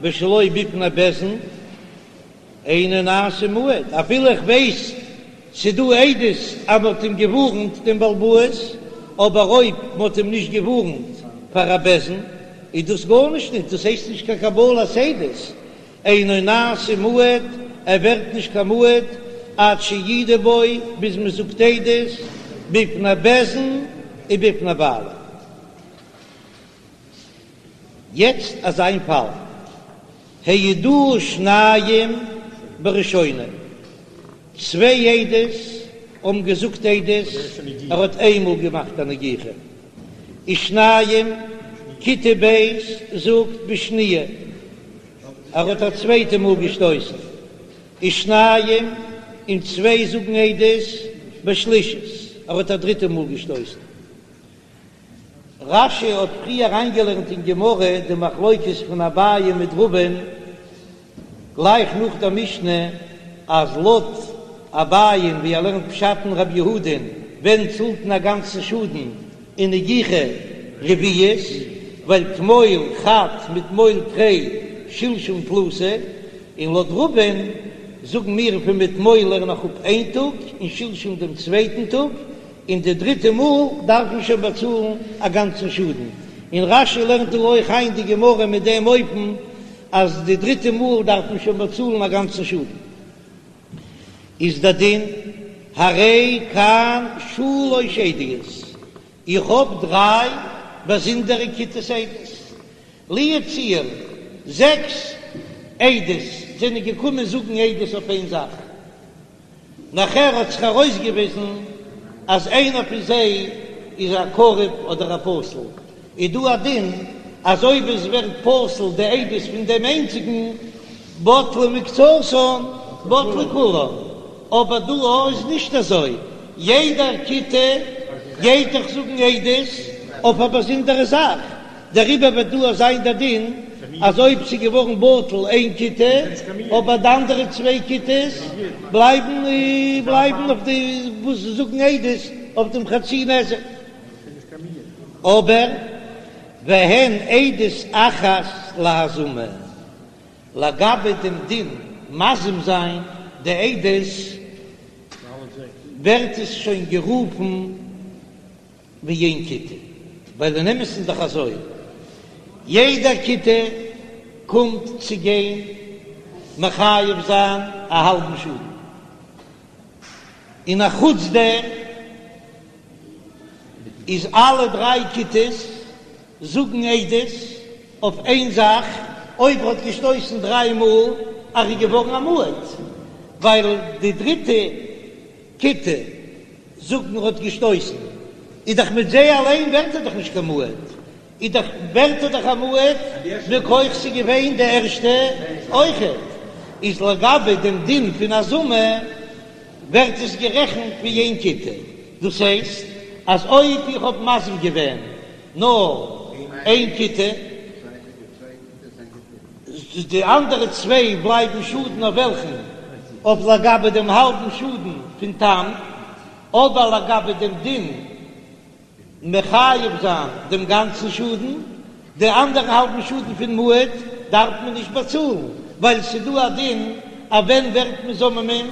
ושלא בפני בית דין, אינו נעשה מועד, אפילו איך ווייס ס'דא עדות אז מ'האט אים געווארנט דעם בעל הבית, אבער אויב מ'האט אים נישט געווארנט פאר א בית דין איז דאס גארנישט נישט, דאס הייסט נישט קיין קבלת עדות, אינו נעשה מועד, ער ווערט נישט קיין מועד עד שיעידו בו, ביז מ'זאגט עדות בפני בית דין ובפני בעלים. יעצט אזא פאל, העידוהו שניים בראשונה, צוויי עדות האבן געזאגט עדות, ער האט איינמאל געמאכט א נגיחה. ושניים, כיתה ב' זאגט בשניה, ער האט א צווייטע מאל געשטויסן. ושניים, און צוויי זאגן עדות בשלישית, ער האט א דריטע מאל געשטויסן. רש"י האט פריער אריינגעלערנט אין גמרא די מחלוקת פון אביי מיט רבא'ן גלייך נאך דער משנה, אז לויט אביי'ן ווי ער לערנט פשט אין רב יהודה'ן ווען צאלט מען א גאנצן שאדן אין נגיחה רביעית, ווייל תמול חד מתמול תרי שלשום תלתא, און לויט רבא'ן זאגן מיר פון מתמול לערן איך אפ איין טאג און שלשום דעם צווייטן טאג, און די דריטע מאל דארף מען שוין באצאלן א גאנצן שאדן, און רש"י לערנט דא אויך איין די גמרא מיט דעם אופן אז די דריטע מאל דארף מען שוין באצאלן א גאנצן שאדן. איז דער דין הרי כאן שלש עדיות, איך האב דריי באזונדערע כיתות עדות, לו יצוייר זעקס עדות זענען געקומען זאגן עדות אויף איין זאך, נאכער האט זיך ארויסגעוויזן אז איינער פון זיי איז א קרוב אדער א פסול, איז דא א דין אז אויב עס ווערט פסול די עדות פון דעם איינציגן, בטלה מקצתן בטלה כולן, אבער דא איז נישט אזוי, יעדע כיתה גייט דאך זאגן עדות אויף א באזונדערע זאך, דעריבער וועט דא זיין דער דין אז אויב ס'איז געווארן בטל איין כיתה אבער די אנדערע צוויי כיתות בלייבן בלייבן אויף די וואס זאגן עדות אויף דעם חצי נזק. אבער והן עדות אחת להזמה, לגבי דעם דין מזים זיין די עדות ווערט עס שוין גערופן ווי איין כיתה, ווייל אין אמת איז דאך אזוי, יעדע כיתה קומט צו גיין מחייב זיין א האלבן שאדן, און א חוץ דעם איז אלע דריי כיתות זאגן עדות אויף איין זאך, אויב ער האט געשטויסן דריי מאל אז ער איז געווארן א מועד, ווייל די דריטע כיתה זאגן ער האט געשטויסן, איז דאך מיט זיי אליין ווערט ער דאך נישט קיין מועד, איז דאך ווערט ער דאך א מועד מכח ס'איז געווען די ערשטע אויכעט, איז לגבי דעם דין פון הזמה ווערט עס גערעכנט ווי איין כיתה, דאס הייסט אז אויב איך האב מזים געווען נאר איין כיתה, די אנדערע צוויי בלייבן שאדן אויף וועלכן? אויף לגבי דעם האלבן שאדן פון תם, אבער לגבי דעם דין מחייב זיין דעם גאנצן שאדן, די אנדערע האלבן שאדן פון מועד דארף מען נישט באצאלן, ווייל ס'דא א דין אז ווען ווערט מען זוממין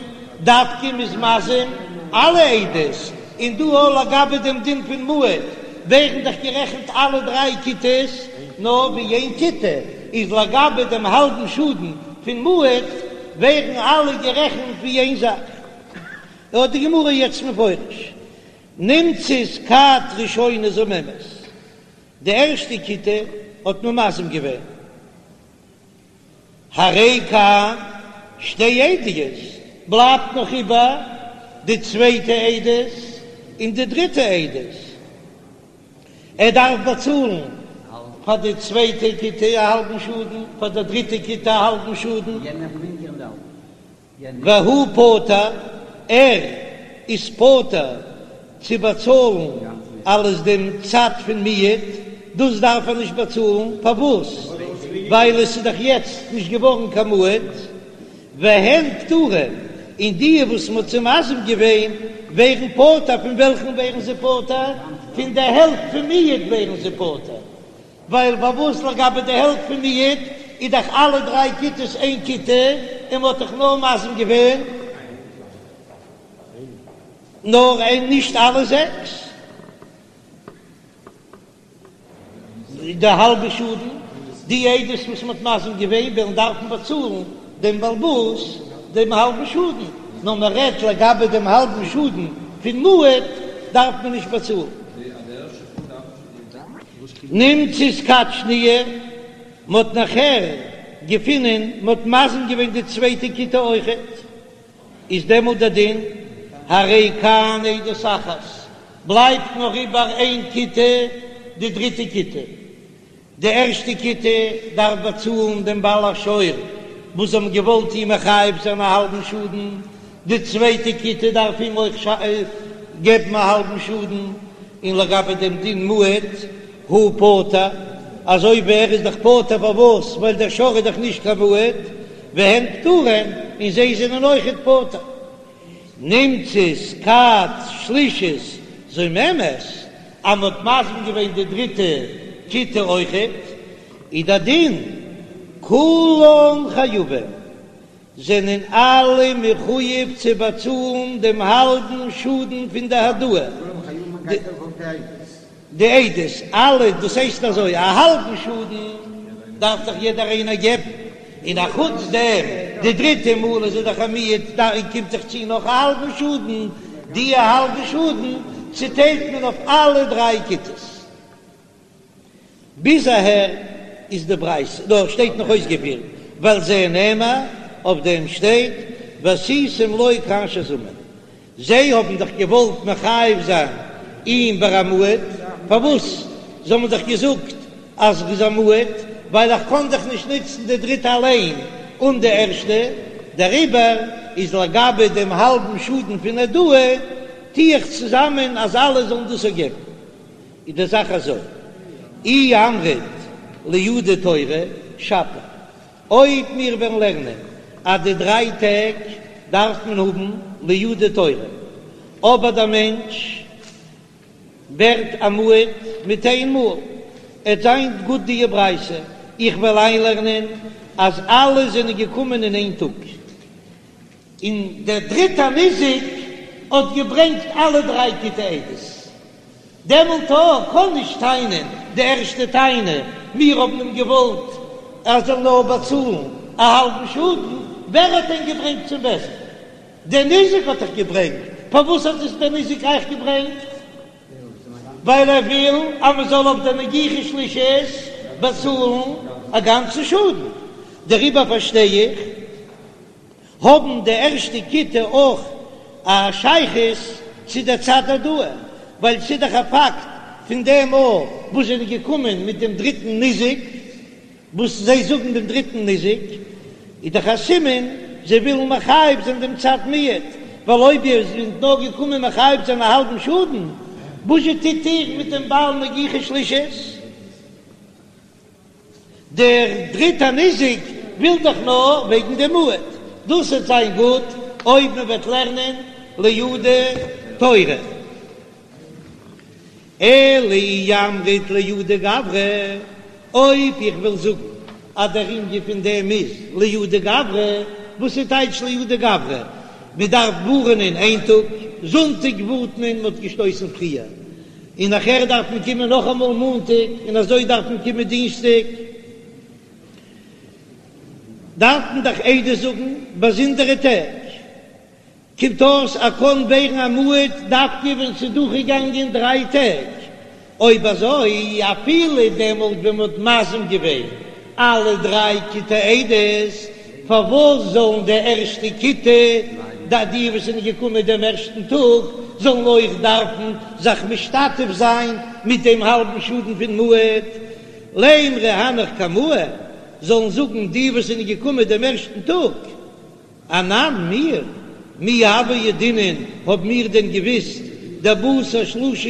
דווקא מ'איז מזים אלע עדות, און דא אויך לגבי דעם דין פון מועד ווערן דאך גערעכנט אלע דריי כיתות נאר ווי איין כיתה, איז לגבי דעם האלבן שאדן פון מועד ווערן אלע גערעכנט ווי איין זאך. האט די גמרא יעצט מפרש, נמצאת כת ראשונה זוממת, די ערשטע כיתה האט מען מזים געווען, הרי כאן שתי עדיות, בלייבט נאך איבער די צווייטע עדות און די דריטע עדות, ער דארף באצאלן פאר די צווייטע כיתה א האלבן שאדן, פאר די דריטע כיתה א האלבן שאדן. והוא פטור, ער איז פטור צו באצאלן אלעס דעם צד פון מיעוט, דאס דארף ער נישט באצאלן, פארוואס? ווייל עס איז דאך יעצט נישט געווארן קיין מועד, והן פטורין, און די וואס מען האט זיי מזים געווען ווערן פטור, פון וועלכן ווערן זיי פטור? פון די העלפט פון מיעוט ווערן זיי פטור, ווייל פארוואס לגבי די העלפט פון מיעוט איז דאך אלע דריי כיתות איין כיתה און מ'האט דאך נאר מזים געווען נאר איין נישט אלע זעקס די האלבע שאדן, די עדות וואס מ'האט מזים געווען וועלן דארפן באצאלן דעם בעל הבית דעם האלבן שאדן, נאר מ'רעדט לגבי דעם האלבן שאדן פון מועד דארף מען נישט באצאלן. נמצאת כת שניה, מ'האט נאכער געפינען מ'האט מזים געווען די צווייטע כיתה אויכעט, איז דעמאלט דער דין הרי כאן עדות אחת, בלייבט נאר איבער איין כיתה. די דריטע כיתה. די ערשטע כיתה דארף באצאלן דעם בעל השור וואס האבן געוואלט אים מחייב זיין א האלבן שאדן, די צווייטע כיתה דארף אים אויך געבן א האלבן שאדן, און לגבי דעם דין מועד הוא פטור, אזוי ווי ער איז דאך פטור פארוואס ווייל דער שור איז דאך נישט קיין מועד, והן פטורין, און זיי זענען אויכעט פטור. נמצאת כת שלישית זוממת, אז מ'האט מזים געווען די דריטע כיתה אויכעט, איז דער דין כולן חייבים, זענען אלע מחויב צו באצאלן דעם האלבן שאדן פון די העדאה. די עדות, אלע, דאס הייסט אזוי, א האלבן שאדן דארף דאך יעדער איינער געבן, און א חוץ דעם די דריטע מאל איז ער דאך א מועד, דאן קומט זיך צו נאך א האלבן שאדן, די האלבע שאדן צוטיילט מען אויף אלע דריי כיתות. ביז אהער איז די ברייתא, דא שטייט נאך אויסגעפירט, ועל זה נאמר, אויף דעם שטייט, ועשיתם לו כאשר זמם, זיי האבן דאך געוואלט מחייב זיין אים ביי א מועד, פארוואס? זיי האבן דאך געזאגט אז ער איז א מועד, ווייל איך קען דאך נישט נוצן די דריטע אליין אן די ערשטע, דעריבער איז לגבי דעם האלבן שאדן פון העדאה, טו איך צוזאמען אז אלע זאלן דאס געבן. איז די זאך אזוי, אי אמרת לייעודי תורא שפיר, אויב מיר וועלן לערנען אז די דריי טעג דארף מען האבן לייעודי תורא, אבער דער מענטש ווערט א מועד מיט איין מאל, עט זיין גוט די ברייתא, איך וועל איינלערנען אז אלע זענען געקומען אין איין טאג, און דער דריטער ניזק האט געברענגט אלע דריי כיתי עדות. דעמאלט קאן נישט טענה'ן די ערשטע טענה, מיר האבן אים געוואלט ער זאל נאר באצאלן א האלבן שאדן, ווער האט דען געברענגט צום בית דין? דער ניזק האט דאך געברענגט, פארוואס האט עס דער ניזק אייך געברענגט? ווייל ער וויל אז מען זאל אויף דער נגיחה שלישית באצאלן א גאנצן שאדן, דעריבער פארשטיי איך האבן די ערשטע כיתה אויך א שייכות צו דער צד העדאה, ווייל ס'איז דאך א פאקט פון דעם מאל וואס זענען געקומען מיט דעם דריטן ניזק, וואס זיי זאגן דעם דריטן ניזק, איז דאך א סימן זיי ווילן מחייב זיין דעם צד מועד, ווייל אויב איר זענט נאר געקומען מחייב זיין א האלבן שאדן, וואזשע טוט איר מיט דעם בעל נגיחה שלישית? דער דריטער ניזק וויל דאך נאר וועגן דעם מועד, דאס וועט זיין גוט אויב מען וועט לערנען לייעודי תורא. אלא אי אמרת לייעודי גברא, אויב איך וויל זאגן אז דער ענין פון דעם איז לייעודי גברא, וואס איז טייטש לייעודי גברא? מען דארף ווארענען איין טאג, זונטאג ווארנט מען, מען האט געשטויסן פריער, און נאכער דארף מען קומען נאכאמאל מאנטאג, און אזוי דארף מען קומען דינסטאג, דארף מען דאך עדות זאגן באזונדערע טעג, קומט אויס ער קען ווערן א מועד דווקא ווען ס'איז דורכגעגאנגען דריי טעג, אויב אזוי אפילו דעמאלט ווען מ'האט מזים געווען אלע דריי כיתי עדות, פארוואס זאלן די ערשטע כיתה, די די וואס זענען געקומען דעם ערשטן טאג, זאלן אויך דארפן זיך משתתף זיין מיט דעם האלבן שאדן פון מועד? לימרו הנך קמאי, זאלן זאגן די וואס זענען געקומען דעם ערשטן טאג. אנן, מיר, מי הוה ידעינן, האב מיר דען געוויסט, דבתר שלשה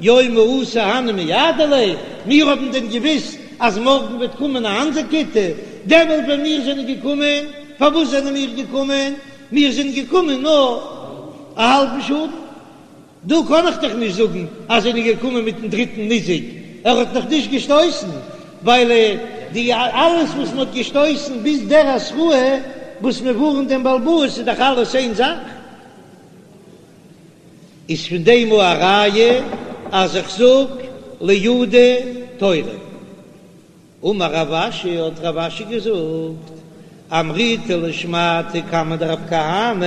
יומי אתו הני ומייעדי ליה, מיר האבן דען געוויסט אז מארגן וועט קומען א אנדער כיתה, דעמאלט ווען מיר זענען געקומען, פארוואס זענען מיר געקומען? מיר זענען געקומען נאר א האלבן שאדן. דא קען איך דאך נישט זאגן אז זענען געקומען מיטן דריטן ניזק, ער האט נאך נישט געשטויסן, ווייל די אלעס וואס מען האט געשטויסן ביז דער התראה וואס מען ווארנט דעם בעל הבית איז דאך אלעס איין זאך. איז פון דעם א ראיה אז איך זאג לייעודי תורא. אמר רב אשי, האט רב אשי געזאגט, אמריתה לשמעתא קמיה דרב כהנא,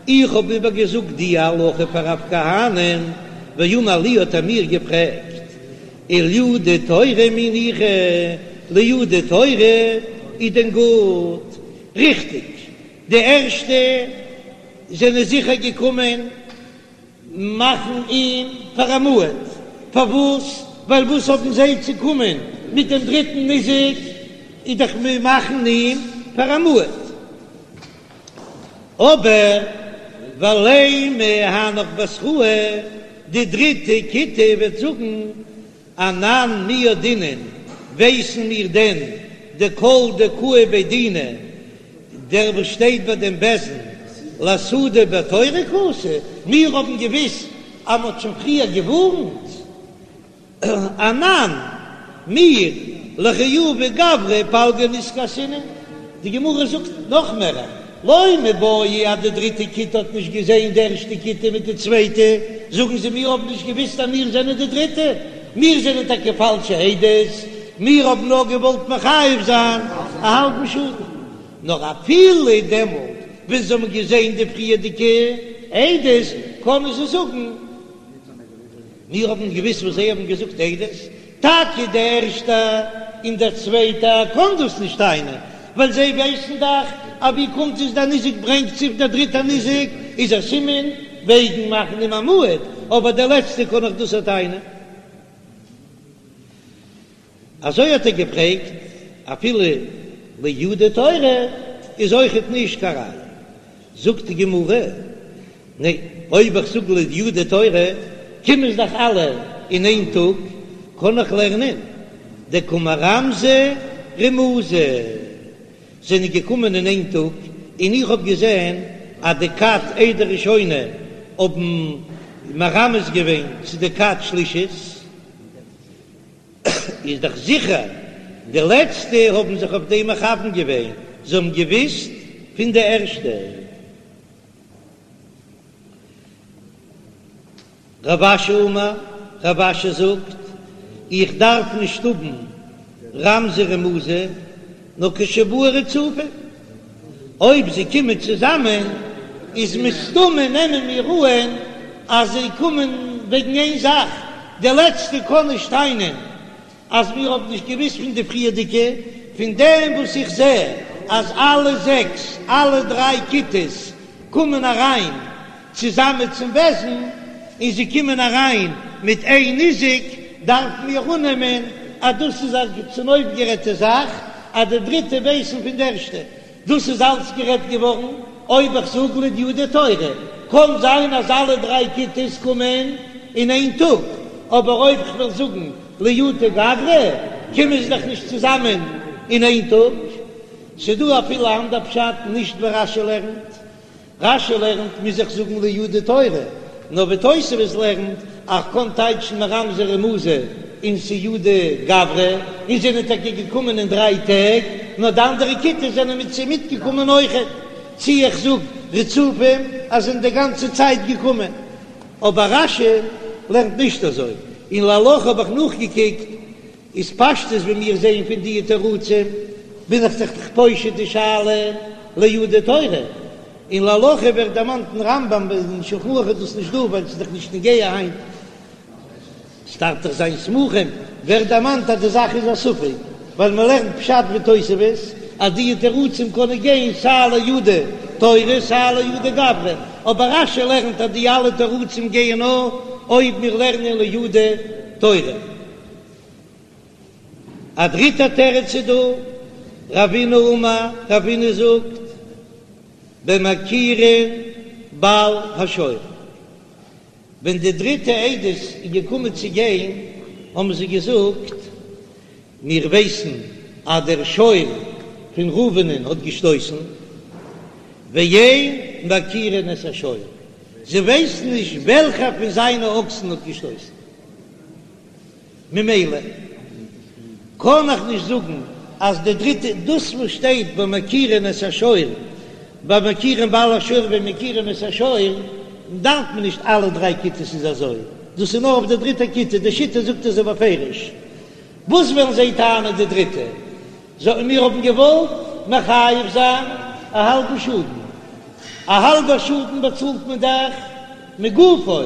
איך האב איבערגעזאגט די הלכה פאר רב כהנא, ואמר לי האט ער מיר געפרעגט, ולייעודי תורא מי ניחא, לייעודי תורא איז דען גוט? ריכטיג, די ערשטע זענען זיכער געקומען מאכן אים פאר א מועד. פארוואס? ווייל וואס האבן זיי צו קומען מיט דעם דריטן ניזק, איז דאך מיר מאכן אים פאר א מועד. אבער ולימא הנך בתראי, די דריטע כיתה וועט זאגן, אנן מי ידעינן, ווייסן מיר דען דכל דקאי בי דינא, דער וואס שטייט ביי דעם בית דין לאסהודי בתורא קאתי, מיר האבן געוויסט אז מ'האט שוין פריער געווארנט. אנן, מיר, לחיובי גברא פלגא נזקא אסינן, די גמרא זאגט נאך מער, לא מיבעיא אז די דריטע כיתה האט נישט געזען די ערשטע כיתה מיט די צווייטע, זאגן זיי מיר האבן נישט געוויסט אז מיר זענען די דריטע, מיר זענען טאקע פאלשע עדות, מיר האבן נאר געוואלט מחייב זיין א האלבן שאדן, נאר אפילו דעמאלט ווען זיי האבן געזען די פריערדיגע עדות קענען זיי זאגן. מיר האבן געוויסט וואס זיי האבן געזאגט עדות, טאקע די ערשטע און דער צווייטע קען דאס נישט טענה'ן, ווייל זיי ווייסן דאך אז ווי קומט עס דער ניזק ברענגט זיך דער דריטער ניזק איז א סימן וועגן מאכן אים א מועד, אבער דער לעצטע קען דאך דאס טענה'ן. אזוי האט ער געפרעגט, אפילו לייעודי תורא איז אויכעט נישט קיין ראיה. זאגט די גמרא, ניין, אויב איך זאג לייעודי תורא, קומען זיי דאך אלע אין איין טאג, קען איך לערנען דקא מרמזי רמוזי, זענען געקומען אין איין טאג, און איך האב געזען אז די כת עדה ראשונה האבן מרמז געווען צו די כת שלישית. איז דאך זיכער די לעצטע האבן זיך אויף דעם מכוון געווען, זיי האבן געוויסט פון די ערשטע. רב אשי אמר, רב אשי זאגט, איך דארף נישט האבן רמזי רמוזי, נאר כשבאו רצופים, אויב זיי קומען צוזאמען איז מסתמא נעמען מיר אהן אז זיי קומען וועגן איין זאך, די לעצטע קען נישט טענה'ן אז מיר האבן נישט געוויסט פון די פריערדיגע, פון דעם וואס איך זע אז אלע זעקס, אלע דריי כיתות קומען אריין צוזאמען צום בית דין, און זיי קומען אריין מיט איין ניזק, דארפן מיר אננעמען אז דאס איז א צונויפגערעדטע זאך, אז די דריטע ווייסן פון די ערשטע. דאס איז אלץ גערעדט געווארן אויב איך זאג לייעודי תורא, קען זיין אז אלע דריי כיתות קומען אין איין טאג, אבער אויב כ'וועל זאגן לייעודי גברא, קומען זיי דאך נישט צוזאמען אין איין טאג. ס'דא אפילו א אנדער פשט, נישט ווי רש"י לערנט. רש"י לערנט מוז איך זאגן לייעודי תורא, נאר ווי תוספות לערנט אז כ'קען טייטשן מרמזי רמוזי און ס'איעודי גברא, און זענען טאקע געקומען אין דריי טעג, נאר די אנדערע כיתות זענען מיט זיי מיטגעקומען אויכעט, צי איך זאג רצופים אז זענען די גאנצע צייט געקומען, אבער רש"י לערנט נישט אזוי, און להלכה האב איך נאכגעקוקט איז פשטות ווי מיר זעען פון די תירוצים בין איך זיך דאך פושט די שאלה לייעודי תורא, און להלכה ווערט דערמאנט אין רמב"ם אין שולחן ערוך איז דאס נישט דא ווייל ס'איז דאך נישט נוגע היינט, ס'דארף דאך זיין סמוכים, ווערט דערמאנט אז די זאך איז א ספק ווייל מ'לערנט פשט ותוספות אז די תירוצים קענען גיין סיי לייעודי תורא סיי לייעודי גברא, אבער רש"י לערנט אז די אלע תירוצים גייען נאר אויב מיר לערנען לייעודי תורא. א דריטע תירוץ איז דא, רבינא אמר, רבינא זאגט, במכירין בעל השור, ווען די דריטע עדות איז געקומען צו גיין, האבן זיי געזאגט, מיר ווייסן אז דער שור פון ראובנ'ען האט געשטויסן, ואין מכירין את השור, זיי ווייסן נישט וועלכער פון זיינע אקסן האט געשטויסן. ממילא קען איך נישט זאגן אז די דריטע, דאס וואס שטייט במכירין את השור, במכירין בעל השור ומכירין את השור, דארף מען נישט אלע דריי כיתות איז אזוי, דאס איז נאר אויף די דריטע כיתה, די שיטה זאגט אזוי בפירוש, וואס וועלן זיי טענה'ן די דריטע? זאגן מיר האבן געוואלט מחייב זיין א האלבן שאדן, א האלבער שאדן באצאלט מען דאך מגופו,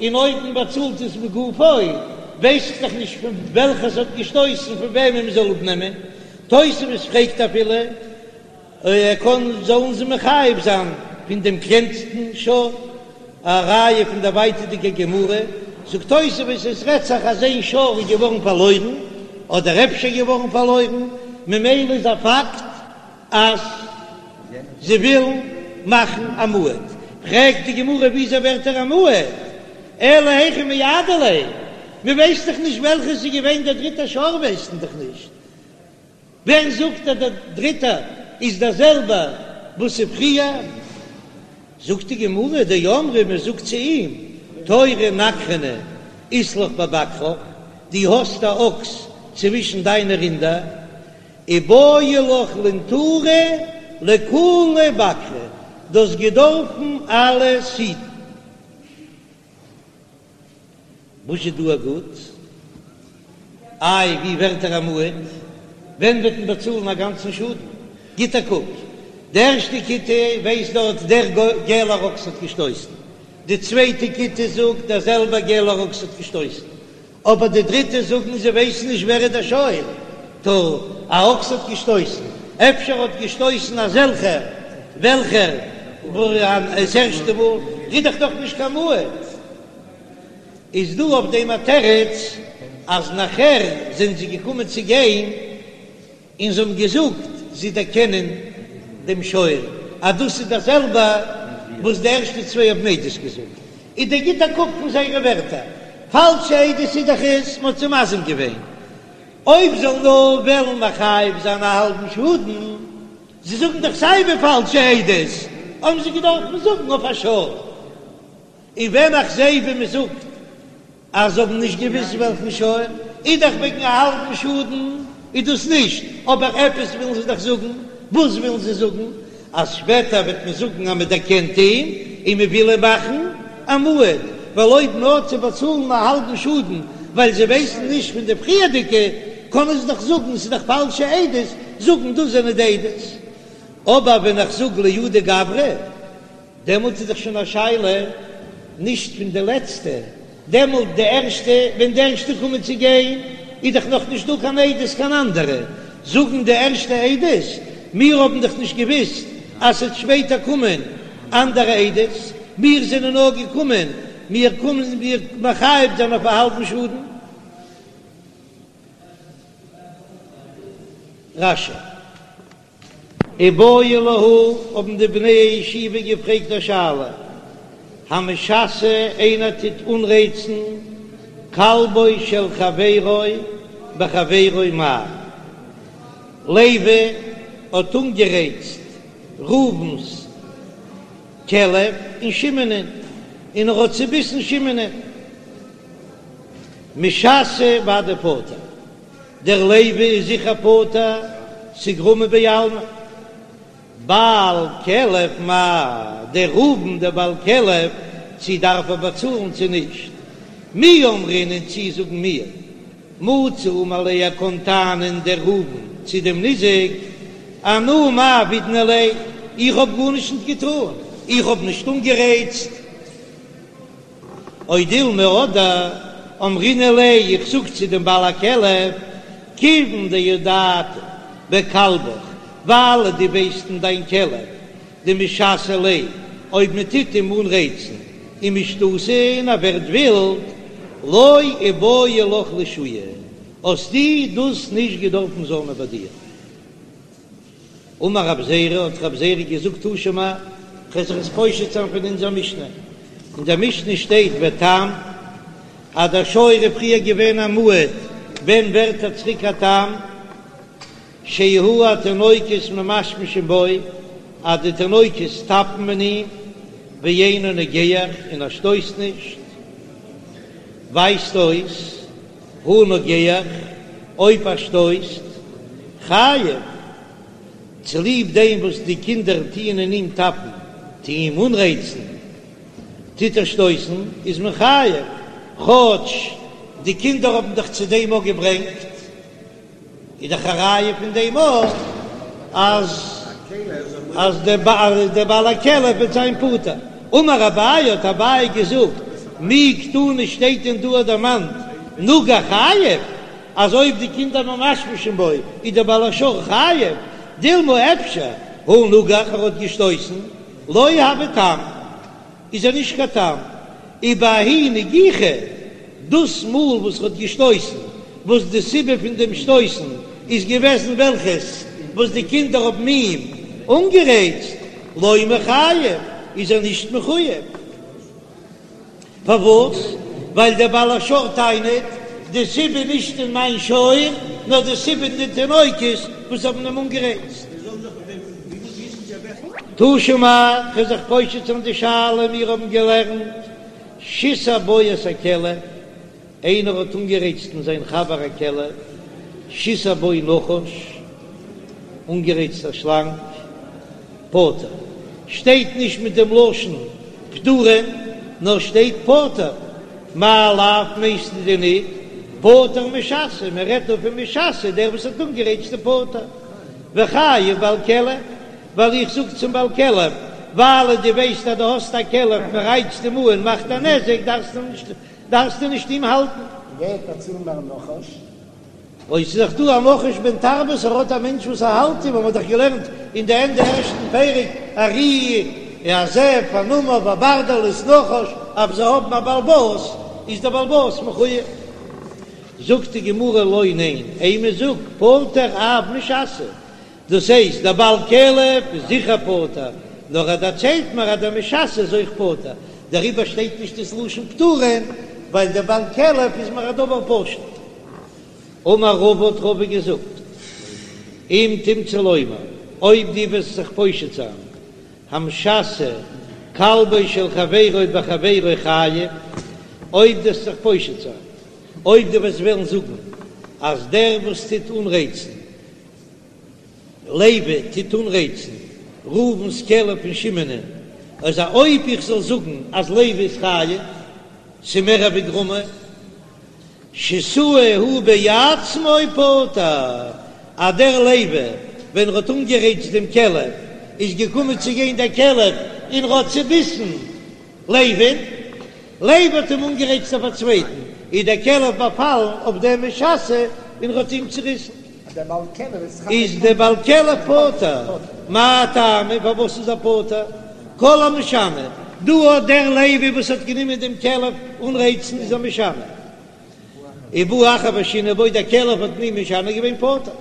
און אויב מען באצאלט עס מגופו ווייס איך דאך נישט פון וועלכע ס'האט געשטויסן פון וועמען מען זאל אפנעמען, תוספות פרעגט אפילו ער קען זאלן זיי מחייב זיין פון דעם קלענסטן שור, א ראיה פון דער ווייטערדיגער גמרא. זאגט תוספות עס רעדט זיך אז איין שור איז געווארן פארלוירן, אדער אפשר געווארן פארלוירן, ממילא איז א פאקט אז זיי ווילן מאכן א מועד. פרעגט די גמרא וויאזוי ווערט ער א מועד? אלא היכי מייעדי ליה, מען ווייסט דאך נישט וועלכע ס'איז געווען דער דריטער שור ווייסט מען דאך נישט. ווער זאגט אז דער דריטער איז דער זעלבער וואס איז פריער? זאגט די גמרא, דאמרי מען זאגט צו אים, תורא נגחנא אית לך בבקרך, דו האסט א אקס צווישן דיינע רינדער, איבעי לך לינטורי לכולהו בקרי, דו האסט געדארפן אלעס היטן. וואס איז דא א גוט? איי ווי ווערט ער א מועד? ווען וועט מען באצאלן א גאנצן שאדן? גיט א קוק, די ערשטע כיתה ווייסט דארט דער געלער אקס האט געשטויסן, די צווייטע כיתה זאגט דער זעלבער געלער אקס האט געשטויסן, אבער די דריטע זאגן זיי ווייסן נישט ווער איז דער שור, טא א אקס האט געשטויסן, אפשר האט געשטויסן אזעלכער וועלכער עס ערשטע מאל, איז דאך דאך נישט קיין מועד. איז דא אויף דעם א תירוץ אז נאכער זענען זיי געקומען צו גיין און זיי האבן געזאגט זיי דערקענען דעם שור אז דאס איז דער זעלבע וואס די ערשטע צוויי האבן עדות געזאגט, איז דער גיט א קוק פון זייערע ווערטער, פאלשע עדות איז דאך עס, מען האט זיי מזים געווען, אויב זאל נאר וועלן מחייב זיין א האלבן שאדן, זיי זאגן דאך סיי ווי פאלשע עדות, האבן זיי געדארפט זאגן אויף א שור. און ווען איך זעה ווי מען זאגט אז זיי האבן נישט געוויסט וועלכן שור, איז דאך וועגן א האלבן שאדן איז דאס נישט, אבער עפעס ווילן זיי דאך זאגן, וואס ווילן זיי זאגן? אז שפעטער וועט מען זאגן אז מען דערקענט אים און מען וויל אים מאכן א מועד, ווייל אויב נאר צו באצאלן א האלבן שאדן ווייל זיי ווייסן נישט פון די פריערדיגע, קענען זיי דאך זאגן ס'איז דאך פאלשע עדות, זאגן דאס זענען די עדות. אבער ווען איך זאג לייעודי גברא. דעמאלט איז דאך שוין א שאלה נישט פון די לעצטע, דעמאלט די ערשטע, ווען די ערשטע קומען צו גיין איז דאך נאך נישט דא קיין עדות קיין אנדערע, זאגן די ערשטע עדות, מיר האבן דאך נישט געוויסט אז ס'וועט שפעטער קומען אנדערע עדות, מיר זענען נאר געקומען, מיר קומען מיר מחייב זיין אויף א האלבן שאדן. רש"י. איבעיא להו, האבן די בני הישיבה געפרעגט א שאלה, המשסה איינער טוט אנרייצן כלבו של חברו בחבירו מהו? לוי האט אנגערייצט ראובן'ס כלב אין שמעונ'ען און ער האט צוביסן שמעונ'ען. משסה ודאי פטור. דער לוי איז זיכער פטור, ס'איז גרמא בעלמא. בעל כלב מהו, דער ראובן דער בעל כלב, צי דארף ער באצאלן צי נישט? מי אמרינן צי זאגן מיר, מצי אמר ליה ער קאן טענה'ן דער ראובן צו דעם ניזק, אנא מאי עבידנא ליה, איך האב גארנישט נישט געטאן, איך האב נישט אנגערייצט. או דילמא אדער אמרינן ליה, איך זאג צו דעם בעל הכלב, כיוון דידעת בכלבך, ווייל דו ווייסט אין דיין כלב, דמשסי ליה, אויב מען טוט אים אנרייצן ומשתתי און ער ווערט ווילד, לא איבעי לך לשהויי, האסטו דאס נישט געדארפן זאל מען ביי דיר. אמר רב זירא, האט רב זירא געזאגט תא שמע, כ'וועל זיך עס פושט זיין פון אונזער משנה, אין דער משנה שטייט ותם, אז דער שור איז פריער געווען א מועד, ווען ווערט ער צוריק א תם? שיהו התינוקות ממשמשין בו, אז די תינוקות טאפן אין אים, ואינו נוגח, און ער שטויסט נישט, ווייזט אויס הא נוגח, אויב ער שטויסט, חייב, צוליב דעם וואס די קינדער טוען אין אים טאפן, טוען אים אנרייצן, טוט ער שטויסן, איז מען חייב, כאטש די קינדער האבן דאך צו דעם אויך געברענגט. איז דאך א ראיה פון דעם אויך אז אז דער בעל הכלב וועט זיין פטור. אמר אביי האט אביי געזאגט, מי קתני שטייט דען דא דערמאנט נגח חייב, אז אויב די קינדער ממשמשין בו איז דער בעל השור חייב, דילמא אפשר הא נגח ער האט געשטויסן לא הוי תם איז ער נישט קיין תם, ובההיא נגיחה. דאס מאל וואס ער האט געשטויסן, וואס די סיבה פון דעם שטויסן איז געוועזן וועלכעס וואס די קינדער האבן אים אנגערייצט, לא מיחייב, איז ער נישט מחוייב. פארוואס? ווייל דער בעל השור טענה'ט, די סיבה נישט אין מיין שור, נאר די סיבה אין די תינוקות וואס האבן אים אנגערייצט. תא שמע, כ'וועל זיך פושט זיין די שאלה, מיר האבן געלערנט שיסה בו את הכלב, איינער האט אנגערייצט אין זיין חבר א כלב, שיסה בו נחש, אנגערייצט א שלאנג, פטור. שטייט נישט מיט דעם לשון פטורין, נאר שטייט פטור. מאי לאו מיינסטו דען ניט פטור משסה, מען רעדט דא פון משסה, דער וואס האט אנגערייצט איז פטור. וחייב בעל כלב, ווייל איך זאג צום בעל כלב, ווייל דו ווייסט אז דו האסט א כלב, מען רייצט אים אן, מאכט א נזק, דארפסטו נישט דארפסטו נישט אים האלטן. ווער באצאלט מער נחש? אוי ס'איז דאך דא א נחש בן תרבות ער האט א מענטש וואס ער האלט אים, האבן מיר דאך געלערנט אין די ענדע ערשטן פרק ארי א זאב א נמר וברדלס נחש אויב זיי האבן א בעל בית איז דער בעל בית מחויב. זאגט די גמרא לא ניין אימא זאג פטור אף משסה דאס הייסט דער בעל כלב איז זיכער פטור, נאר ער דערציילט מיר אז דער משסה איז אויך פטור, דעריבער שטייט נישט דאס לשון פטורין, ווייל דער בעל כלב איז מיר א דבר פשוט. אמר רבא האט רבא געזאגט, אם תמצא לומר, אויב דו וועסט זיך פושט זיין, המשסה כלבו של חברו בחברו חייב, אויב דו וועסט זיך פושט זיין, אויב דו וועסט וועלן זאגן אז דער וואס טוט אנרייצן, לוי טוט אנרייצן ראובן'ס כלב פון שמעונ'ען, אז אויב איך זאל זאגן אז לוי איז חייב, ס'מער ווי גרמא, שיסהו הוא בעצמו פטור, אז דער לוי ווען ער האט אנגערייצט דעם כלב איז געקומען צו גיין דער כלב און ער האט צוביסן לוי'ן, לוי האט אים אנגערייצט אויף א צווייטן, איז דער כלב באפאלן אויף דעם משסה און ער האט אים צוריסן. איז דער בעל כלב פטור, מאי טעמא פארוואס איז ער פטור? כל המשנה, דא האט דער לוי וואס האט גענומען דעם כלב אנרייצן איז א משנה, ובא אחר ושינה בו, דער כלב האט אים משנה געווען פטור.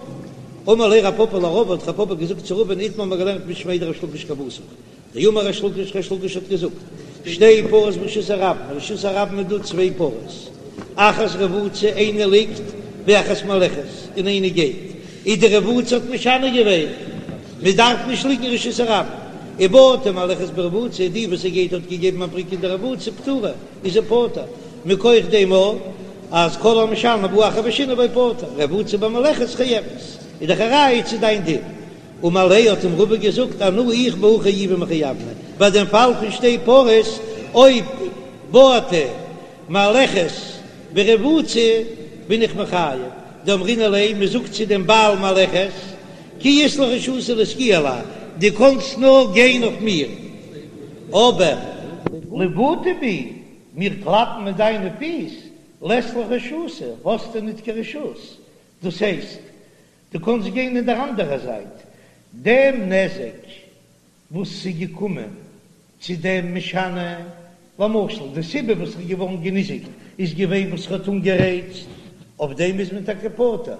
אמר ליה רב פפא לרבא האט רב פפא געזאגט צו רבא'ן איתמר מ'האט געלערנט משמיה דריש לקיש כוותיך דאמר ריש לקיש ריש לקיש האט געזאגט, שתי פרות ברשות הרבים, אין רשות הרבים איז דא צוויי פרות, אחת רבוצה איינע ליגט ואחת מהלכת און איינע גייט, איז די רבוצה האט משנה געווען, מען דארף נישט ליגן אין רשות הרבים, ובעטה מהלכת ברבוצה, די וואס ס'גייט האט געגעבן א בריק אין די רבוצה פטורה, איז זי פטור, מכח דעם אז כל המשנה ובא אחר ושינה בו פטור, רבוצה במהלכת חייבת, איז דאך א ראיה צו דיין דין. אמר ליה האט אים רבא געזאגט אנא איך בהא חיובי מחייבנא, ביי דעם פאל פון שתי פרות אויב בעטה מהלכת ברבוצה בין איך מחייב, דאמרינן ליה, מען זאגט צו דעם בעל מהלכת כי אית לך רשותא לסגויי עלי, דו קאנסט נאר גיין אויף מיר, אבער לבעוטי בי, מיר קלאפן מיט דיינע פיס, לית לך רשותא, האסטו ניט קיין רשות, דאס הייסט, דו קאנסט גיין אין דער אנדערער זייט, דעם נזק וואס ס'איז געקומען צו דעם משנה, למשל די סיבה וואס ער איז געווארן געניזיקט איז געווען וואס ער האט אנגערייצט, אויף דעם איז מען טאקע פטור,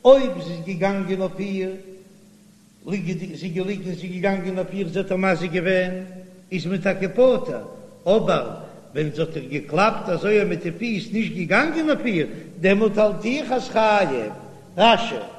אויב זי איז געגאנגען אויף איר ליגעדיג, זי איז געליגן, זי איז געגאנגען אויף איר, זי האט איר מזיק געווען, איז מען טאקע פטור, אבער ווען זי האט איר געקלאפט אזוי מיט די פיס, נישט געגאנגען אויף איר, דעמאלט האלט איך אז חייב. רש"י.